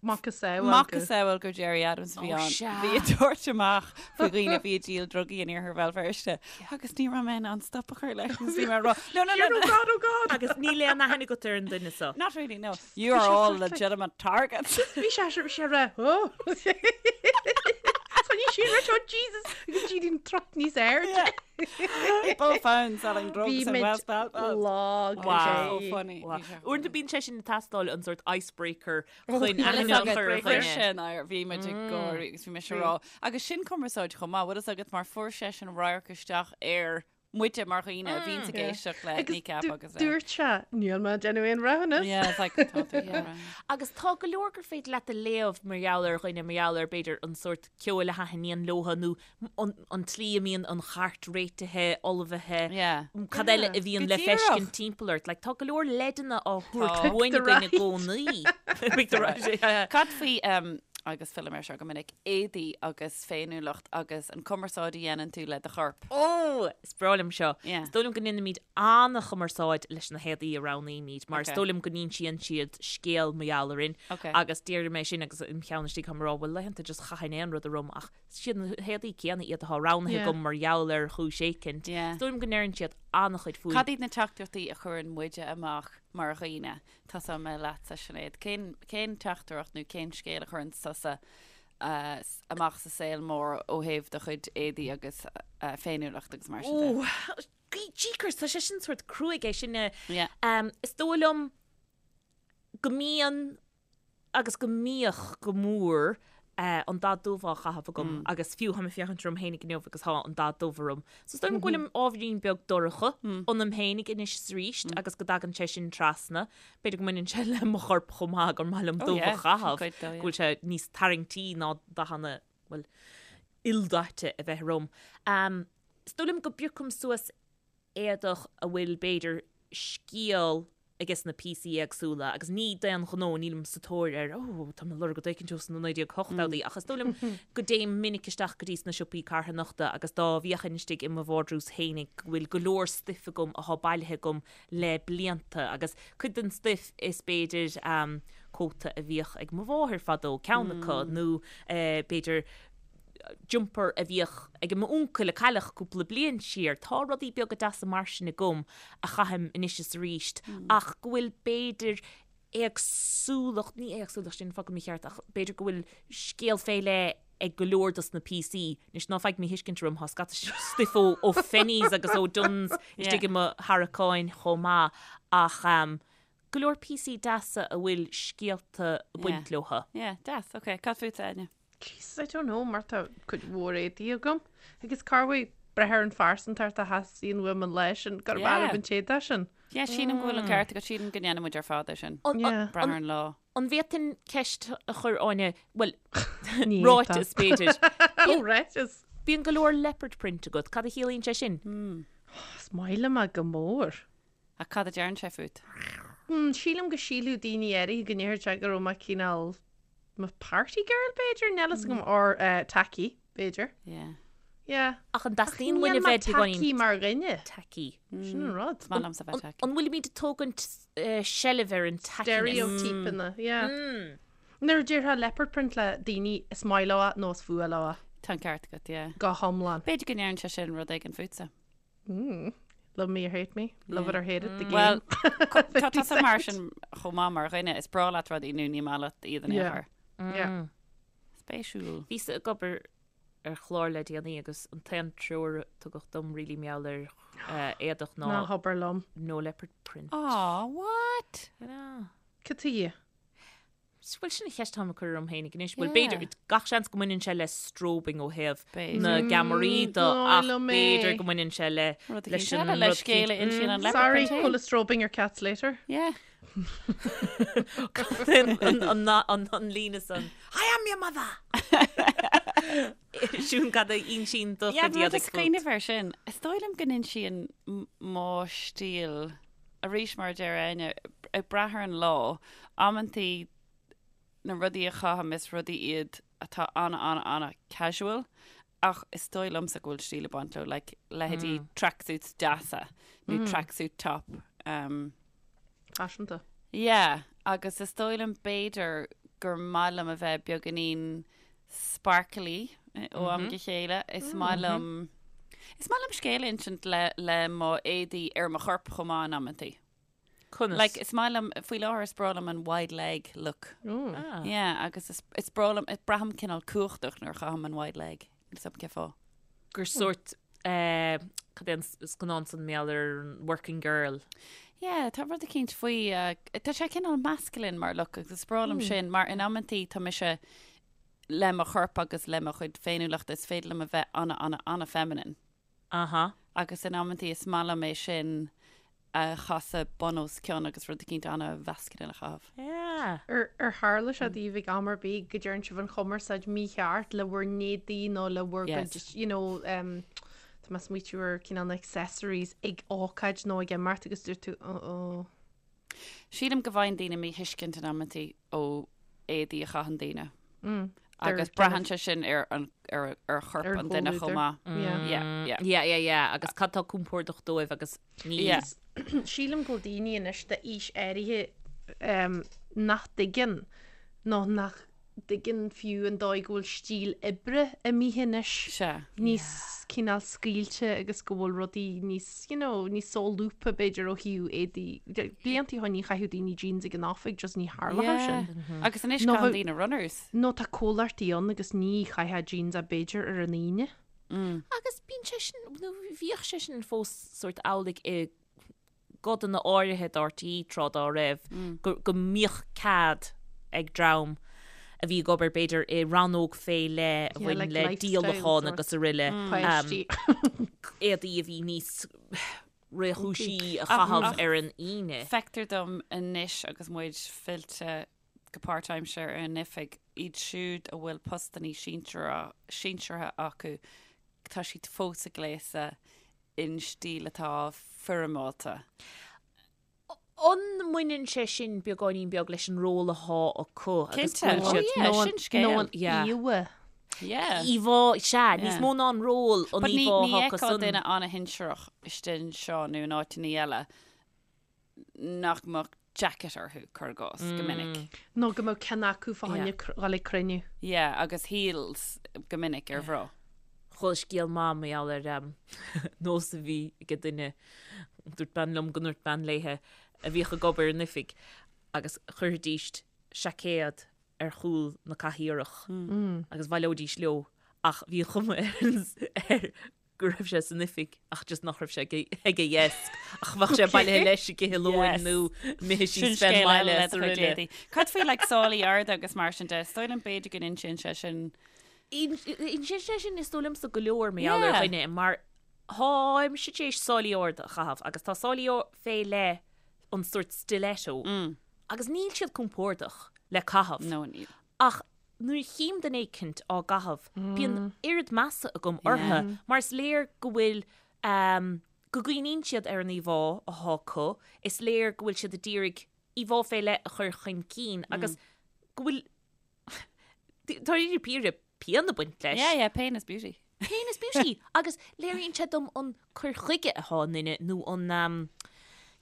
Macasamhail. Macasamhail gur Gerry Adams a bhí ann. Bhí ag tabhairt amach faoi dhaoine a bhí ag díol drugaí in iarthar Bhéal Feirste agus ní raibh mé in ann stop a chur leis agus bhí mé ag rá No, no, no, Oh God, oh God! Agus níl aon aithne agat ar an duine seo. Not really, no. You are all legitimate targets. Bhí sé bhí sé rá, oh! Tá ní sin rá, oh Jesus! Agus G truck níos airde. People found selling drugs in West Belfast. Lag. Wow. So funny. Wow. Bhí sé Uaireanta bíonn sé sin ag teastáil an sort icebreaker chun Bhí aithne a chur ar dhuine. sin air, bhí muid ag gáirí agus bhí mise ag rá. Agus sin cumarsáid chomh maith, bhfuil fhios agat mar fuair seisean radharc isteach ar muide mar dhaoine a bhíonns ag éisteacht le Agus Kneecap agus le. dúirt sé, níl mé ag déanamh aon bhreithiúnas. Yeah, it's like, tá tú ag déanamh. Agus tá go leor gur féidir leat a léamh mar gheall ar dhuine, mar gheall ar b'fhéidir an sórt ceoil a thaitníonn leotha nó an tslí a mbíonn an chairt réitithe, ullmhaithe, Yeah. cad eile a bhíonn Go le díreach. feiscint timpeall ort. Like, tá go leor leideanna á thabhairt Tá. uainn againn i gcónaí. Pick the right. Yeah. Cad faoi, um, agus fillim air seo go minic, éadaí agus féiniúlacht agus an cumarsáid a dhéanann tú le do chorp. Ó! Is breá liom seo. Yeah. Is dóigh liom go ndéanaimid an-chumarsáid leis na héadaí a roghnaímid, mar is Ok. dóigh liom go n-insíonn siad scéal mar gheall orainn. Ok. Agus déarfaidh mé sin agus im cheann istigh táim ag rá, bhuel laethanta just chaithfinn aon rud orm ach is iad na héadaí céanna iad atá roghnaithe Yeah. agam mar gheall ar chúis éicint. Yeah. Is dóigh liom go ndeireann siad an-chuid fúinn. Cad iad na teachtaireachtaí a chuireann muide amach mar dhaoine? Tosóidh mé leatsa, Sinéad. Cén, cén teachtaireacht nó cén scéal a chuireann tusa amach sa saol mór ó thaobh do chuid éadaí agus féiniúlacht agus mar sin de? Ó, jeekers, tá sé sin sórt cruaidh é sin. Yeah. Is dóigh liom go mbíonn agus go mbíodh go mór an dath dubh á chaitheamh agam agus fiú táim ag féachaint orm féinig inniu agus tá an dath dubh orm. So is dóigh liom go bhfuilim ábhairín beag dorcha ionam féinig anois is arís agus go dtagann sé sin trasna. B'fhéidir go mbaineann sé le mo chorp chomh maith gur maith liom Oh dubh a yeah, sin chaitheamh, cuid dó, go yeah. bhfuil sé níos tarraingtí ná dathanna, bhuel, ildaite a bheith orm. Is dóigh liom go bpiocaim suas éadach a bhfuil b'fhéidir scéal ages na píosaí éagsúla agus ní d'aon ghnó, nílim sa tóir ar oh tá mé ag lorg rud éicint ós na 1980idí ach is dóigh liom go dtéim minic isteach go dtí sna siopaí carthanachta agus dá bhféachfainn istigh i mo vardrús fhéinig go bhfuil go leor stuif agam athá bailithe agam le blianta agus cuid den stuif is b'fhéidir cóta a bhíodh ag mo mháthair fadó, ceann acu nó b'fhéidir jumper a bhíodh ag m'uncail a cailleadh cúpla bliain siar. Tá rudaí beaga deasa mar sin agam a chaithim anois is arís ach go bhfuil b'fhéidir éagsúlacht, ní éagsúlacht, sin focal mícheart, ach b'fhéidir go bhfuil scéal fé leith ag go leor dos na píosaí. Anois ná faigh míthuiscint orm, tá scata stuif ó ó Phenneys agus ó Dunnes istigh i mo tharraiceáin chomh maith ach go leor píosaí deasa a bhfuil scéalta ag baint leothu. Yeah, deas, ok. Cad fútsa, Áine? Jesus, I don't know, mar tá cuid mhór éadaí agam. Agus corruair brath ar an phearsantacht a theastaíonn uaim an lá sin, gurb Yeah. fhearr liom an t-éadach sin. Yeah, sílim go bhfuil an ceart agat, sílim go ndéanann muid ar fad é sin. Yeah. Brath ar an lá. An bhféadfainn ceist a chur, Áine, bhuel, Ní ráiteas b'fhéidir. Ó, ráiteas. Bíonn go leor leopard print agat, cad a chiallaíonn sé sin? Is maith liom é go mór. Ach cad a deireann sé fút? Hmm, sílim go sílfeadh daoine áirithe go ndéarfadh sé go raibh mé cineál mo party girl b'fhéidir, níl a fhios agam, or eh, tacky b'fhéidir. Yeah. Yeah. Ach an dteastaíonn uainn Níl a mé bheith tacky beagáinín mar dhuine. tacky? Sin an rud. Is maith liomsa bheith tacky. An bhfuilimid ag tógaint eh, seilbh ar an tackiness? Stereotypeanna, yeah. Nuair a déarfá leopard print le daoine is maith leo é nó is fuath leo é. Tá an ceart agat, yeah. Go hiomlán. B'fhéidir go ndeireann sé sin rud éigin fútsa. Mm. Love me or hate me, love it or hate it, the game. Well, tá tusa mar sin chomh maith mar dhuine, is breá leat rudaí nó ní maith leat iad in aon Yeah. chor. Yeah. Spéisiúil. Bhíos ag obair ar chlár le déanaí agus an t-aon treoir a tugadh dom really mar gheall ar eh, éadach ná Ná habair liom. no leopard print. Aw, what? I know. Cad tuige? Bhuel, sin an cheist atáim ag cur orm féinig anois. Bhuel, Yeah. b'fhéidir, gach seans go mbaineann sé le strobing ó thaobh B'fhéidir. na gceamaraí de, Mm, ach liom é. b'fhéidir go mbaineann sé le Rud leis eicínt an eile, le rud scéal a céanna. insíonn an leopard Sorry, print féin. pull a strobing your cats later. Yeah. An- an- an- an líne san. I am your mother! Siún cad a insíonn do Yeah, chuid rud éadaigh is fút. cuimhneamh air sin. Is dóigh liom go n-insíonn m- mo stíl arís mar a deir Áine, ag brath ar an lá, amantaí na rudaí a chaithim is rudaí iad atá ana ana ana casual ach is dóigh liomsa go bhfuil stíl ag baint leo, like leithéidí tracksuits deasa nó tracksuit top. Um, Faiseanta. yeah, agus is dóigh liom b'fhéidir gur maith liom a bheith beagáinín sparkly ó am go chéile. Is maith liom, is maith liom scéal a insint le, le mo éadaí ar mo chorp chomh maith in amantaí. Conas? Like, is maith liom, faoi láthair is breá liom an wide leg look. Ah. Yeah, agus is, is breá liom, braithim cineál cumhachtach nuair a chaithim an wide leg. Níl 'fhios a'm cén fáth. Gur sórt, eh, cad é an scannán san mar gheall ar an working girl? Yeah, tá rud eicínt faoi, eh, tá sé cineál masculine mar look agus is breá liom sin mar in amantaí tá mise le mo chorp agus le mo chuid féiniúlachta is féidir liom a bheith ana, ana, ana feminine. Aha. Agus in amantaí is maith liom é sin a chasadh bun os cionn agus rud eicínt ana-mhasculine a chaitheamh. Yeah. Ar ar tharla sé daoibh ag am ar bith go dtearn sibh an chumarsáid mícheart le bhur n-éadaí nó le bhur Yes. gcuid, you know, um, tá mé ag smaoitiú ar cineál na accessories ag ócáid nó ag imeacht agus dúirt tú, oh, oh. Sílim go bhfaigheann daoine míthuiscint in amantaí ó éadaí a chaitheann daoine. Mm. Agus braitheann sé sin ar an ar ar chorp Ar an duine chomh chomhluadar. maith. Yeah. Yeah, yeah. Yeah, yeah, yeah. Agus cad tá compordach dóibh agus ní. Yeah. Sílim go bhfuil daoine anois d'aois áirithe um, nach dtuigeann nó nach dtuigeann fiú an dóigh go bhfuil stíl oibre imithe anois Sea. níos cineál scaoilte agus go bhfuil rudaí níos, you know, níos solúbtha b'fhéidir ó thaobh éadaí. Blianta ó shin ní chaitheadh daoine jeans ag an oifig, just ní tharlódh sin. Yeah. Agus anois Nó caitheann bheadh- daoine runners. Nó tá comhlachtaí ann agus ní chaithfeá jeans ach b'fhéidir ar an Aoine. Agus bíonn sé sin, nó bhíodh sé sin fós sórt amhlaidh i gcodanna áirithe d'RTÉ tráth dá raibh, go mbíodh cead ag dream a bhí ag obair b'fhéidir i rannóg fé leith a bhain le díolachán agus araile, éadaí a bhí níos réchúisí a chaitheamh ar an Aoine. Feictear dom anois agus muid fillte go páirtaimseartha ar an oifig, iad siúd a bhfuil postannaí sinseartha acu, tá siad fós ag gléasadh in stíl atá foirmeálta. An mbaineann sé sin beagáinín beag leis an ról athá acu agus Cinnte. go bhfuil siad Oh yeah, sin scéal. Nó an Yeah. íomhá. Yeah. Íomhá, sea, níos Yeah. mó ná an ról, an But ní, íomhá ní atá acu fheicfeá san. duine ana-shinsearach istigh anseo nó in áiteanna eile nach mbeadh jacket orthu, cuir i gcás, go minic. Nó go mbeadh ceann acu fá choinne dhul ag cruinniú. Yeah, agus heels go minic ar mhná. Chuala scéal maith mar gheall ar nós a bhí ag duine, dúirt bean liom go ndúirt bean léithe a bhíodh ag obair in oifig agus chuirfidís seaicéad ar chúl na cathaoireach agus bhaileoidís leo ach bhí an chuma air go raibh sé san oifig ach just nach raibh sé ag a dheasc ach bheadh sé bailithe leis ag ithe lóin nó imithe Sin síos fén scéal eile mbaile le is do chuid araile. éadaí. Cad faoi like sálaí arda agus mar sin de? Is dóigh liom b'fhéidir go n-insíonn sé sin. Insíonn sé sin is dóigh liomsa go leor mar gheall ar Yeah. dhuine mar táimse tar éis sálaí arda a chaitheamh agus tá sálaí fé leith an sórt stiletto agus níl siad compordach le caitheamh. No, níl. Ach nuair a chím duine éicint á gcaitheamh, bíonn oiread measa agam orthu mar is léir go bhfuil, go gcuimhníonn siad ar an íomhá athá acu, is léir go bhfuil siad a d'iarraidh íomhá fé leith a chur chun cinn agus go bhfuil, dáiríre píre, pian ag baint leis. Yeah, yeah, pain is beauty. Pain is beauty! Agus léiríonn sé dom an cur chuige athá i nduine nó an,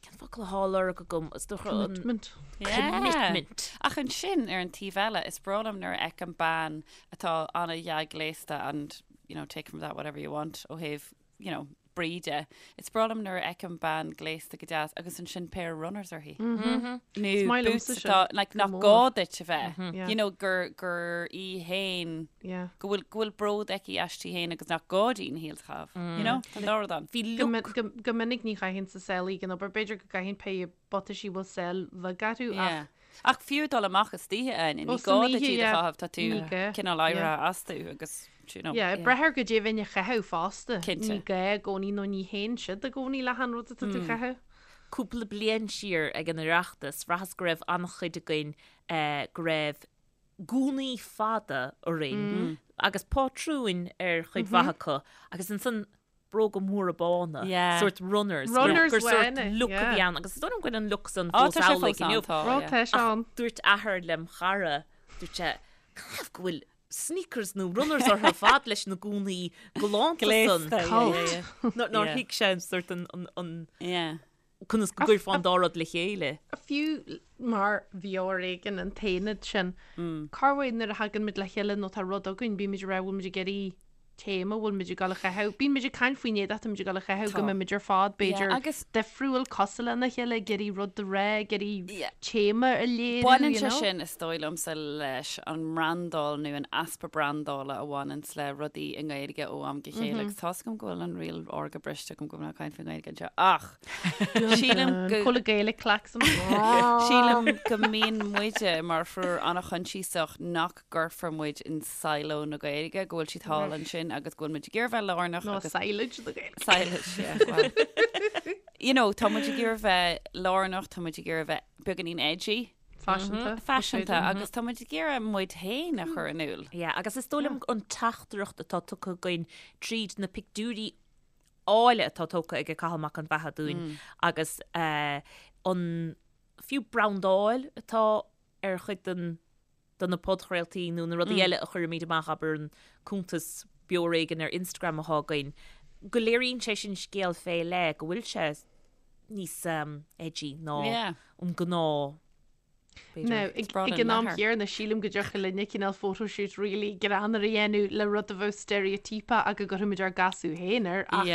cén focal athá á lorg agam, is dócha an. Commitment. Commitment. Ach ansin, ar an taobh eile, is breá liom nuair a fheicim bean atá ana-dhea-ghléasta and, you know, take from that whatever you want ó thaobh you know, brí de. Is breá liom nuair a fheicim bean gléasta go deas agus ansin pair of runners uirthi. Is Nó maith boots liomsa sin, atá, like, go nach mór. gá duit a bheith. Yeah. You know, gur, gur í féin, Yeah. go bhfuil, go bhfuil bród aici aisti féin agus nach gá di na heels a chaitheamh. You know, tá an dá rud ann. Bhí Go, look min, go, go minic ní chaithfinn sálaí ag an obair, b'fhéidir go gcaithfinn pé buataisí bhfuil sáil bheag orthu ach Yeah. Ach fiú dul amach istoíche, Áine, Ó, ní san gá duit oíche, iad a yeah. chaitheamh, tá tú Ní gá, cineál yeah. éirithe astu agus, you know. Yeah, ag brath ar goidé a bheinn a chaitheamh fosta. Cinnte. Ní gá i gcónaí nó ní théann siad i gcónaí le han rud atá tú a chaitheamh. Cúpla bliain siar ag an Oireachtas, bhraitheas go raibh an-chuid againn go raibh gúnaí fada orainn agus pátrúin ar chuid mhaith acu agus ansan bróga móra bána, Yeah. sórt runners, Runners gur sórt bhána, look a yeah. bhí ann agus is dóigh liom go bhfuil an look san Á, fós tá sé amhlaidh fós ann, inniu. tá, Rá yeah. tá sé ann. Dúirt athair lem chara, dúirt sé, canathaobh go bhfuil sneakers nó runners orthu ar fad leis na gúnaí galánta san. Gléasta, yeah, yeah, yeah. Nár Yeah. thuig sé an sórt an, an, an Yeah. Conas go gcuirfeá an dá rud le chéile? Fiú mar Bheo Ar Éigean an t-aonad sin, corruair nuair a thagann muid le chéile nó tá rud againn, bíonn muid ag rá bhfuil muid ag iarraidh téama, bhfuil muid ag dul a chaitheamh, bíonn muid ag caint faoin éadach atá muid ag dul a chaitheamh, go mbeidh muid ar fad b'fhéidir difriúil, cosúil lena chéile, ag iarraidh rud a rá, ag iarraidh téama a léiriú, Baineann sé sin, is dóigh liomsa, leis an mbrandáil nó an easpa brandála a bhaineanns le rudaí i nGaeilge ó am go chéile agus tá's agam go bhfuil an riail órga briste agam go bhfuil mé ag caint faoin nGaeilge anseo ach sílim go Cóla Gaelic clacks. Sílim go mbíonn muide mar thriúr an-choinsiasach nach gcuirfear muid in silo na Gaeilge, go bhfuil siad thall ansin agus go bhfuil muid ag iarraidh bheith lárnach Nó agus silage na Gaeilge. Silage, yeah, well. You know, tá muid ag iarraidh bheith lárnach, tá muid ag iarraidh bheith beagáinín edgy, Faiseanta. faiseanta agus tá muid ag iarraidh muid féin a chur in iúl. Yeah, agus is dóigh liom an teachtaireacht atá tugtha againn tríd na pictiúirí áille atá tógtha ag Cathal Mac an Bheatha dúinn agus eh, an fiú brandáil atá ar chuid den de na podchraoltaí nó na rudaí eile a chuirimid amach, abair an cuntas Beo Ar Éigean ar Instagram atá againn, go léiríonn sé sin scéal fé leith, go bhfuil sé níos edgy ná an gnáth, b'fhéidir. Now, ag an am chéanna, sílim go dtiocfadh linne cineál photoshoot really greannmhar a dhéanamh le rud a bheadh steiréitíopach ach go gcuirfimid ár gcasadh féin air ach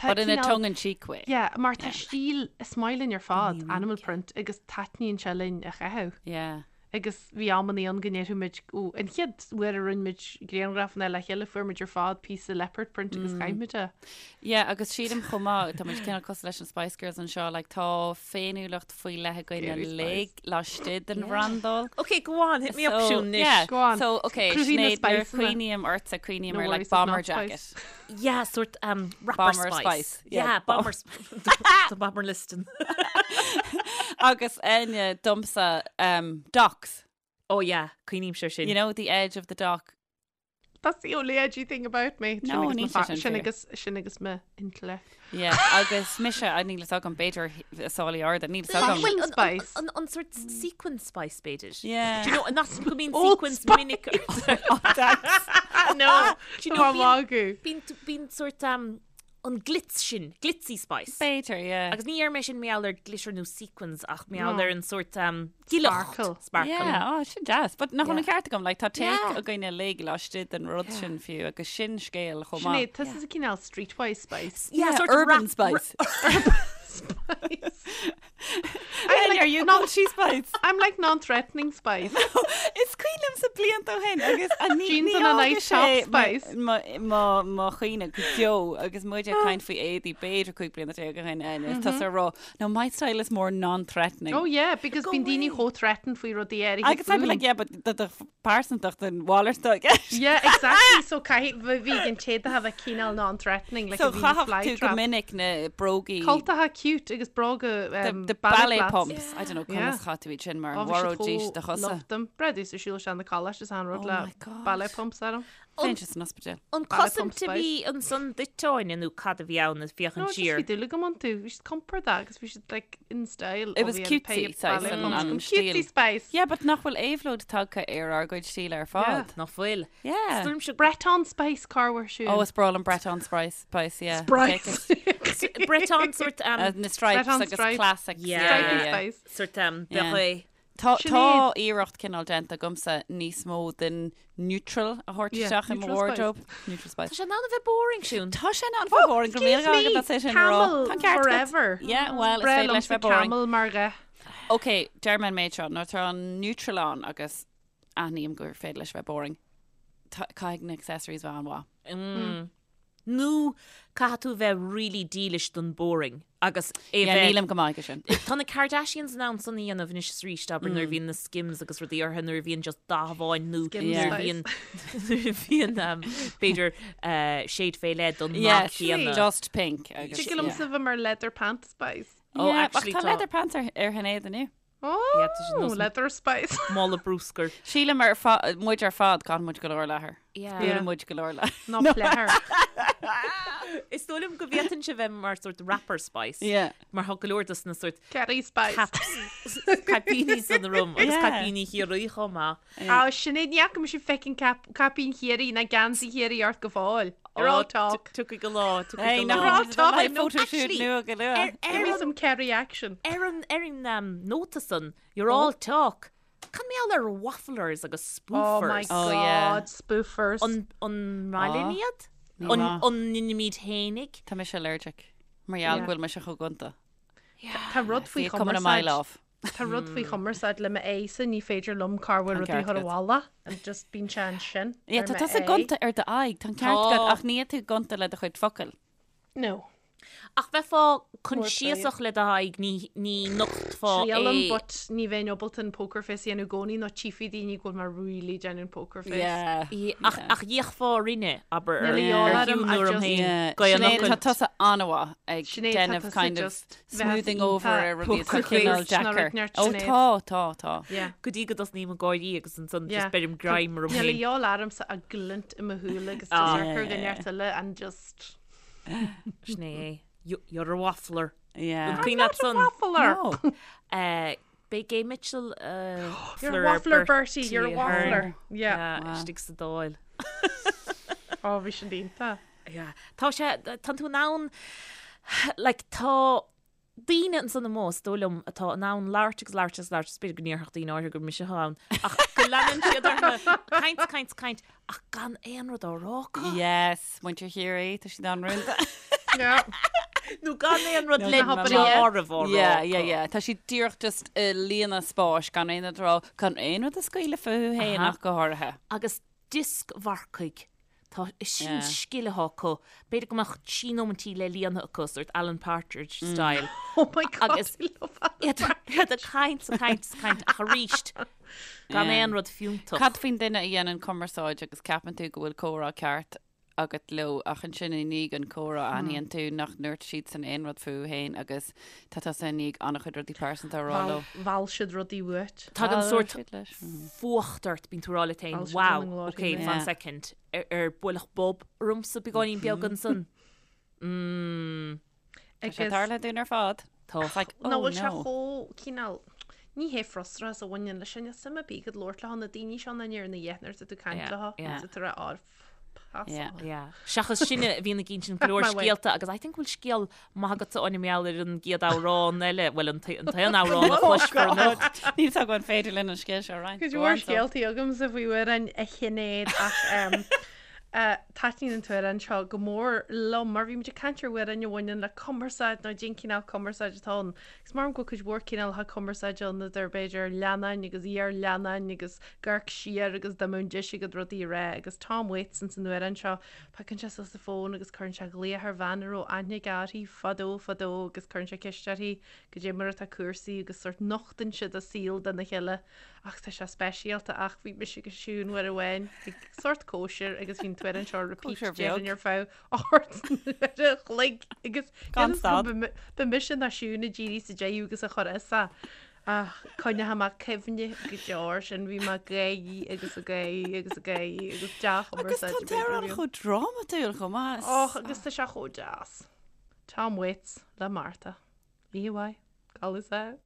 tá But in a tongue-in-cheek way. Yeah, mar tá stíl, is maith linn ar fad, animal print, agus taitníonn sé linn a chaitheamh. Yeah. Agus bhí amannaí ann go ndéarfadh muid, ó, an chéad uair a rinne muid grianghrafanna le chéile fuair muid ar fad píosa leopard print agus chaith muid é. Yeah, agus sílim chomh maith, tá muid cineál cosúil leis na Spice Girls anseo, like tá féiniúlacht faoi leith againn uilig laistigh den bhrandáil. Ok, go on, hit me up Siún anois. Yeah, Go on. So, ok, Cruthaigh na Sinéad, nuair a spiceanna. chuimhním ortsa, cuimhním No ar like worries, it's not bomber spice. jacket. Yeah, sort um, rapper Bomber spice. spice. Yeah, Yeah, bomber spice. The bomber listing. Agus Áine domsa um, docks. Oh yeah, cuimhnímse air sin. You know, the edge of the dock. That's the only edgy thing about me. No, Sin agus níl mo sé fa- sin sin fíor. agus sin agus mo intellect. Yeah, agus mise, a níl fhios agam, b'fhéidir sálaí arda, níl fhios agam. Well, An- spice. An, an, an sort sequin spice b'fhéidir. Yeah. Do you know, nach go mbíonn Old sequins Spice. minic. No, Do you know, tá magadh. Bíonn bíonn sort um, an glitz sin, glitzy spice. B'fhéidir, yeah. Agus ní dheir mé sin mar gheall ar glitter nó sequins ach mar gheall No. ar an sort um, gileacht. Sparkle. Sparkle. Yeah, oh, sin deas. But nach bhfuil an Yeah. ceart agam, like, tá take Yeah. againn uilig laistigh den rud sin fiú, agus sin scéal chomh maith. Sinéad, tusa cineál streetwise spice. Yeah, sort urban of spice. Spice. I'm like, are you not- called she spice? I'm like non-threatening spice. Is cuimhin liomsa blianta ó shin agus a ní Jeans ní and a fhága nice top sé spice. mo- mo mo chuimhne go deo agus muid ag caint faoi éadaí b'fhéidir 15 bliana ó shin Áine, is tusa ag rá no my style is more non-threatening. Oh yeah, because bíonn daoine chomh threatened faoi rudaí áirithe Agus I'd be like, yeah, but do do pearsantacht an mhalairt atá i gceist. Yeah, exactly. So caithfidh bhí an té a bheith cineál non-threatening, like So a bhí na chaithfeadh fly tú go trap. minic na brógaí Cultacha cute agus bróga the, um, the ballet ballet flats. pumps. I don't know, Yeah. conas chaith tú iad sin mar Oh, bhí siad mharóidís do chomh chosa. loved them. Breadú sa siúl sean na coláiste is an rud Oh le my God. ballet pumps orm. Bheinn san ospidéal. An Ballet cosaint pump a bhí ansan duit Áine nó cad a bhí ann ag No, féachaint just siar. bhí dúil agam iontu. Bhí siad compordach agus bhí siad like in style. It was cutesy, saghas, an- an stíl. Cutesy spice. Yeah, but nach bhfuil éabhlóid tagtha ar ár gcuid stíle ar fad. Nach bhfuil. Yeah. Is dóigh liomsa Breton spice corruair siúd. Oh, is breá liom Breton spice, spice, yeah. Spice. Breton sort um, Uh, na stripes Breton agus stripes. classics. Yeah. Yeah, Stripey yeah, yeah. spice. sort um, Yeah. beret. Tá Sinéad. tá iarracht cineál déanta agamsa níos mó den neutral a thabhairt Yeah, isteach i mo neutral wardrobe. Neutral spice. Tá sé in ann a bheith boring Siún. Tá sé in ann bheith boring go Excuse míle me, agat é sin a rá. camel Tá an ceart agat. forever. Yeah, well, is Breá féidir leis liomsa bheith boring. camel mar dhath. Ok, deir mé an méid seo, nuair atá an neutral ann agus aithním gur féidir leis bheith boring. Tá- Caithfidh na accessories bheith an-mhaith. Mm. Nó caithfidh tú bheith really dílis don boring agus é Yeah, bheith nílim go maith aige sin. Tá na Kardashians in ann san a dhéanamh anois is arís, abair nuair a bhíonn na Skims agus rudaí orthu nuair a bhíonn just dath amháin nó Skims nuair a spice. bhíonn nuair a bhíonn um, b'fhéidir uh, shade fé leith don Yeah, nath céanna. just pink. Agus, Tig liomsa bheith mar leather pant spice. Oh, Yeah, ach actually tá tá- leather pants ar, ar Shinéad inniu. Oh, Yeah, tá sé nós- leather spice. Mála bruscair. Sílim ar fa- muid ar fad caitheann muid go leor leathair. Yeah. Yeah. Buaileann muid go leor leathair. Ná pleathair. Is dóigh liom go bhféadfainnse bheith mar sort rapper spice. Yeah. Mar thá go leor dos na sort Kerry spice. caps caipíní san orm agus Yeah. caipíní Chiarraí chomh maith. Á, Sinéad, ní fhaca mise fucking cap, caipín Chiarraí ná geansaí Chiarraí ort go fóill. You're all talk. Tiocfaidh an lá, tiocfaidh Hey, an nach lá. You're all bhfuil talk. live No, photo shoot actually, nua go luath. Ar Give me ar an some Kerry action. ar an ar an um, nóta san, you're all talk. Cad mar gheall ar wafflers agus Oh my spoofers? Oh, yeah. god, spoofers. An an maith linn iad? Ní An maith. an n-imímid fhéinig? Tá mise allergic. Mar gheall Yeah. go bhfuil mise chomh gonta. Tá rud faoi See it coming a mile chumarsáid. off. Tá rud faoi chumarsáid le m'aghaidhse, ní féidir liom corruair Tá an rudaí a ceart chur agat. abhaile and just bíonn sé ansin Yeah, ar tá tusa m'aghaidh. gonta ar d'aghaidh, tá an ceart agat, Tá. ach níl tú gonta le do chuid focal. No. Ach bheifeá coinsiasach le d'aghaidh, ní ní nochtfá Triailim é. but ní bheinn ábalta an poker face a dhéanamh i gcónaí nó tchífidh daoine go bhfuil mé really déanamh an poker face. Yeah. Ach ach d'fhéachfá orainne, abair, Níl ar a dhíobháil ar orm, shiúl I orm just- féin, Yeah. go an Sinéad, fhocail. tá tusa an-mhaith ag Sinéad, tá déanamh tusa kind of just bheith smoothing over iontach ar rudaí atá poker cineál face ná deacair. rud neart Ó Sinéad. tá, tá, tá. Yeah. Go dtí go dtosnaím ag gáirí agus ansan Yeah. just beirim greim orm Níl a féin. dhíobháil ormsa a glint i mo shúile agus Ah. just ar chur go neart eile and just Sin é. You're a waffler. Yeah. An cuimhin leat san? Waffler. No. Eh, B'é Gay Mitchell uh, You're a waffler, Bertie. You're a waffler. Yeah. Yeah, istigh sa Dáil. Ó, bhí sin iontach. Yeah. Tá sé, tá tú in ann, like, tá daoine ansan amuigh, is dóigh liom, atá in ann labhairt agus labhairt agus labhairt, is b'fhéidir go ndéarfadh daoine áirithe gur mise atá ann, ach go leanann siad orthu caint, caint, caint, ach gan aon rud á rá acu. Yes, muintir Chiarraí, tá siad an-rúnda. Yeah. Nó gan aon rud le na hobair a deáramh á rá Yeah, yeah, acu. yeah. Tá siad díreach just ag líonadh spáis gan aon rud a rá, gan aon rud a scaoileadh fúthu féin Aha. ach go háirithe. Agus dioscmharcaigh. Tá, is sin Yeah. scil atá acu. B'fhéidir go mbeadh trí nóimintí le líonadh acu, sort Alan Partridge style. Oh my God, Agus- I love Alan Iad iad ag caint, ag caint, ag caint, ach arís, gan Yeah. aon rud fiúntach. Cad faoin duine a dhéanann cumarsáid agus ceapann tú go bhfuil comhrá ceart agat leo ach ansin i ndiaidh an comhrá aithníonn tú nach ndúirt siadsan aon rud fúthu féin agus tá tusa i ndiaidh an-chuid rudaí pearsanta a rá leo. Mheall siad rudaí uait. Tagann Mheall sórt siad leis. Mhm. fuacht ort, bíonn tú ag rá leat féin, Mheall siad wow, lena nglór okay, féin. fan Yeah. second, ar, ar buaileadh bob ormsa beagáinín beag ansan. Mm, Tá sé tarlaithe dúinn ar fad. tá. It's like, Ná oh bhfuil sé no. chomh cineál ní hé frustrachas a bhaineann leis sin, suim ar bith agat labhairt leo na daoine seo na ar na dhéanamh tú caint Yeah, leo yeah. tá tú ag rá pass Yeah. on. Yeah. Seachas sinne a bhíonn ag insint go leor My way. scéalta agus I think bhfuil scéal maith agatsa Áine mar gheall ar an gcéad amhrán eile, bhuel an t- an t-aon amhrán a chloisfear anocht. Níl a fhios agam an féidir linn an scéal seo a roinnt. Cuid Go mhór on, so. scéaltaí agamsa faoi amhráin a Shinéad ach em, eh, taitníonn an t-amhrán seo go mór liom mar bhí muid ag caint ar amhráin a bhaineann le cumarsáid nó cén cineál cumarsáid atá ann. Agus mar go bhfuil cuid mhór cineálacha cumarsáide ann idir b'fhéidir leannáin agus iar-leannáin agus ag amharc siar agus dá mbeadh an deis agat rudaí a rá agus Tom Waits ins an amhrán seo, piocann sé suas an fón agus cuireann sé glaoch ar bhean a raibh aithne aige uirthi fadó fadó agus cuireann sé ceist uirthi goidé mar atá cúrsaí agus sórt nochtann siad a saol dona chéile ach tá sé speisialta ach bhí mise agus Siún uair amháin ag sórt cóisir agus bhí an t-amhrán seo ar repeat Cóisir déarfainn bheag. ar feadh 8 n-uaire a chloig agus Gan stad. ba mise nó Siún a d'éirigh sa deireadh agus a chur as é. Ach coinneoidh mé cuimhne go deo air sin, bhí mé ag gáirí agus ag gáirí agus ag gáirí agus Agus tá dea-chumarsáid an t-amhrán chomh drámatúil chomh maith. Och, agus tá sé chomh deas. Tom Waits le Martha. Oíche mhaith. Codladh sámh.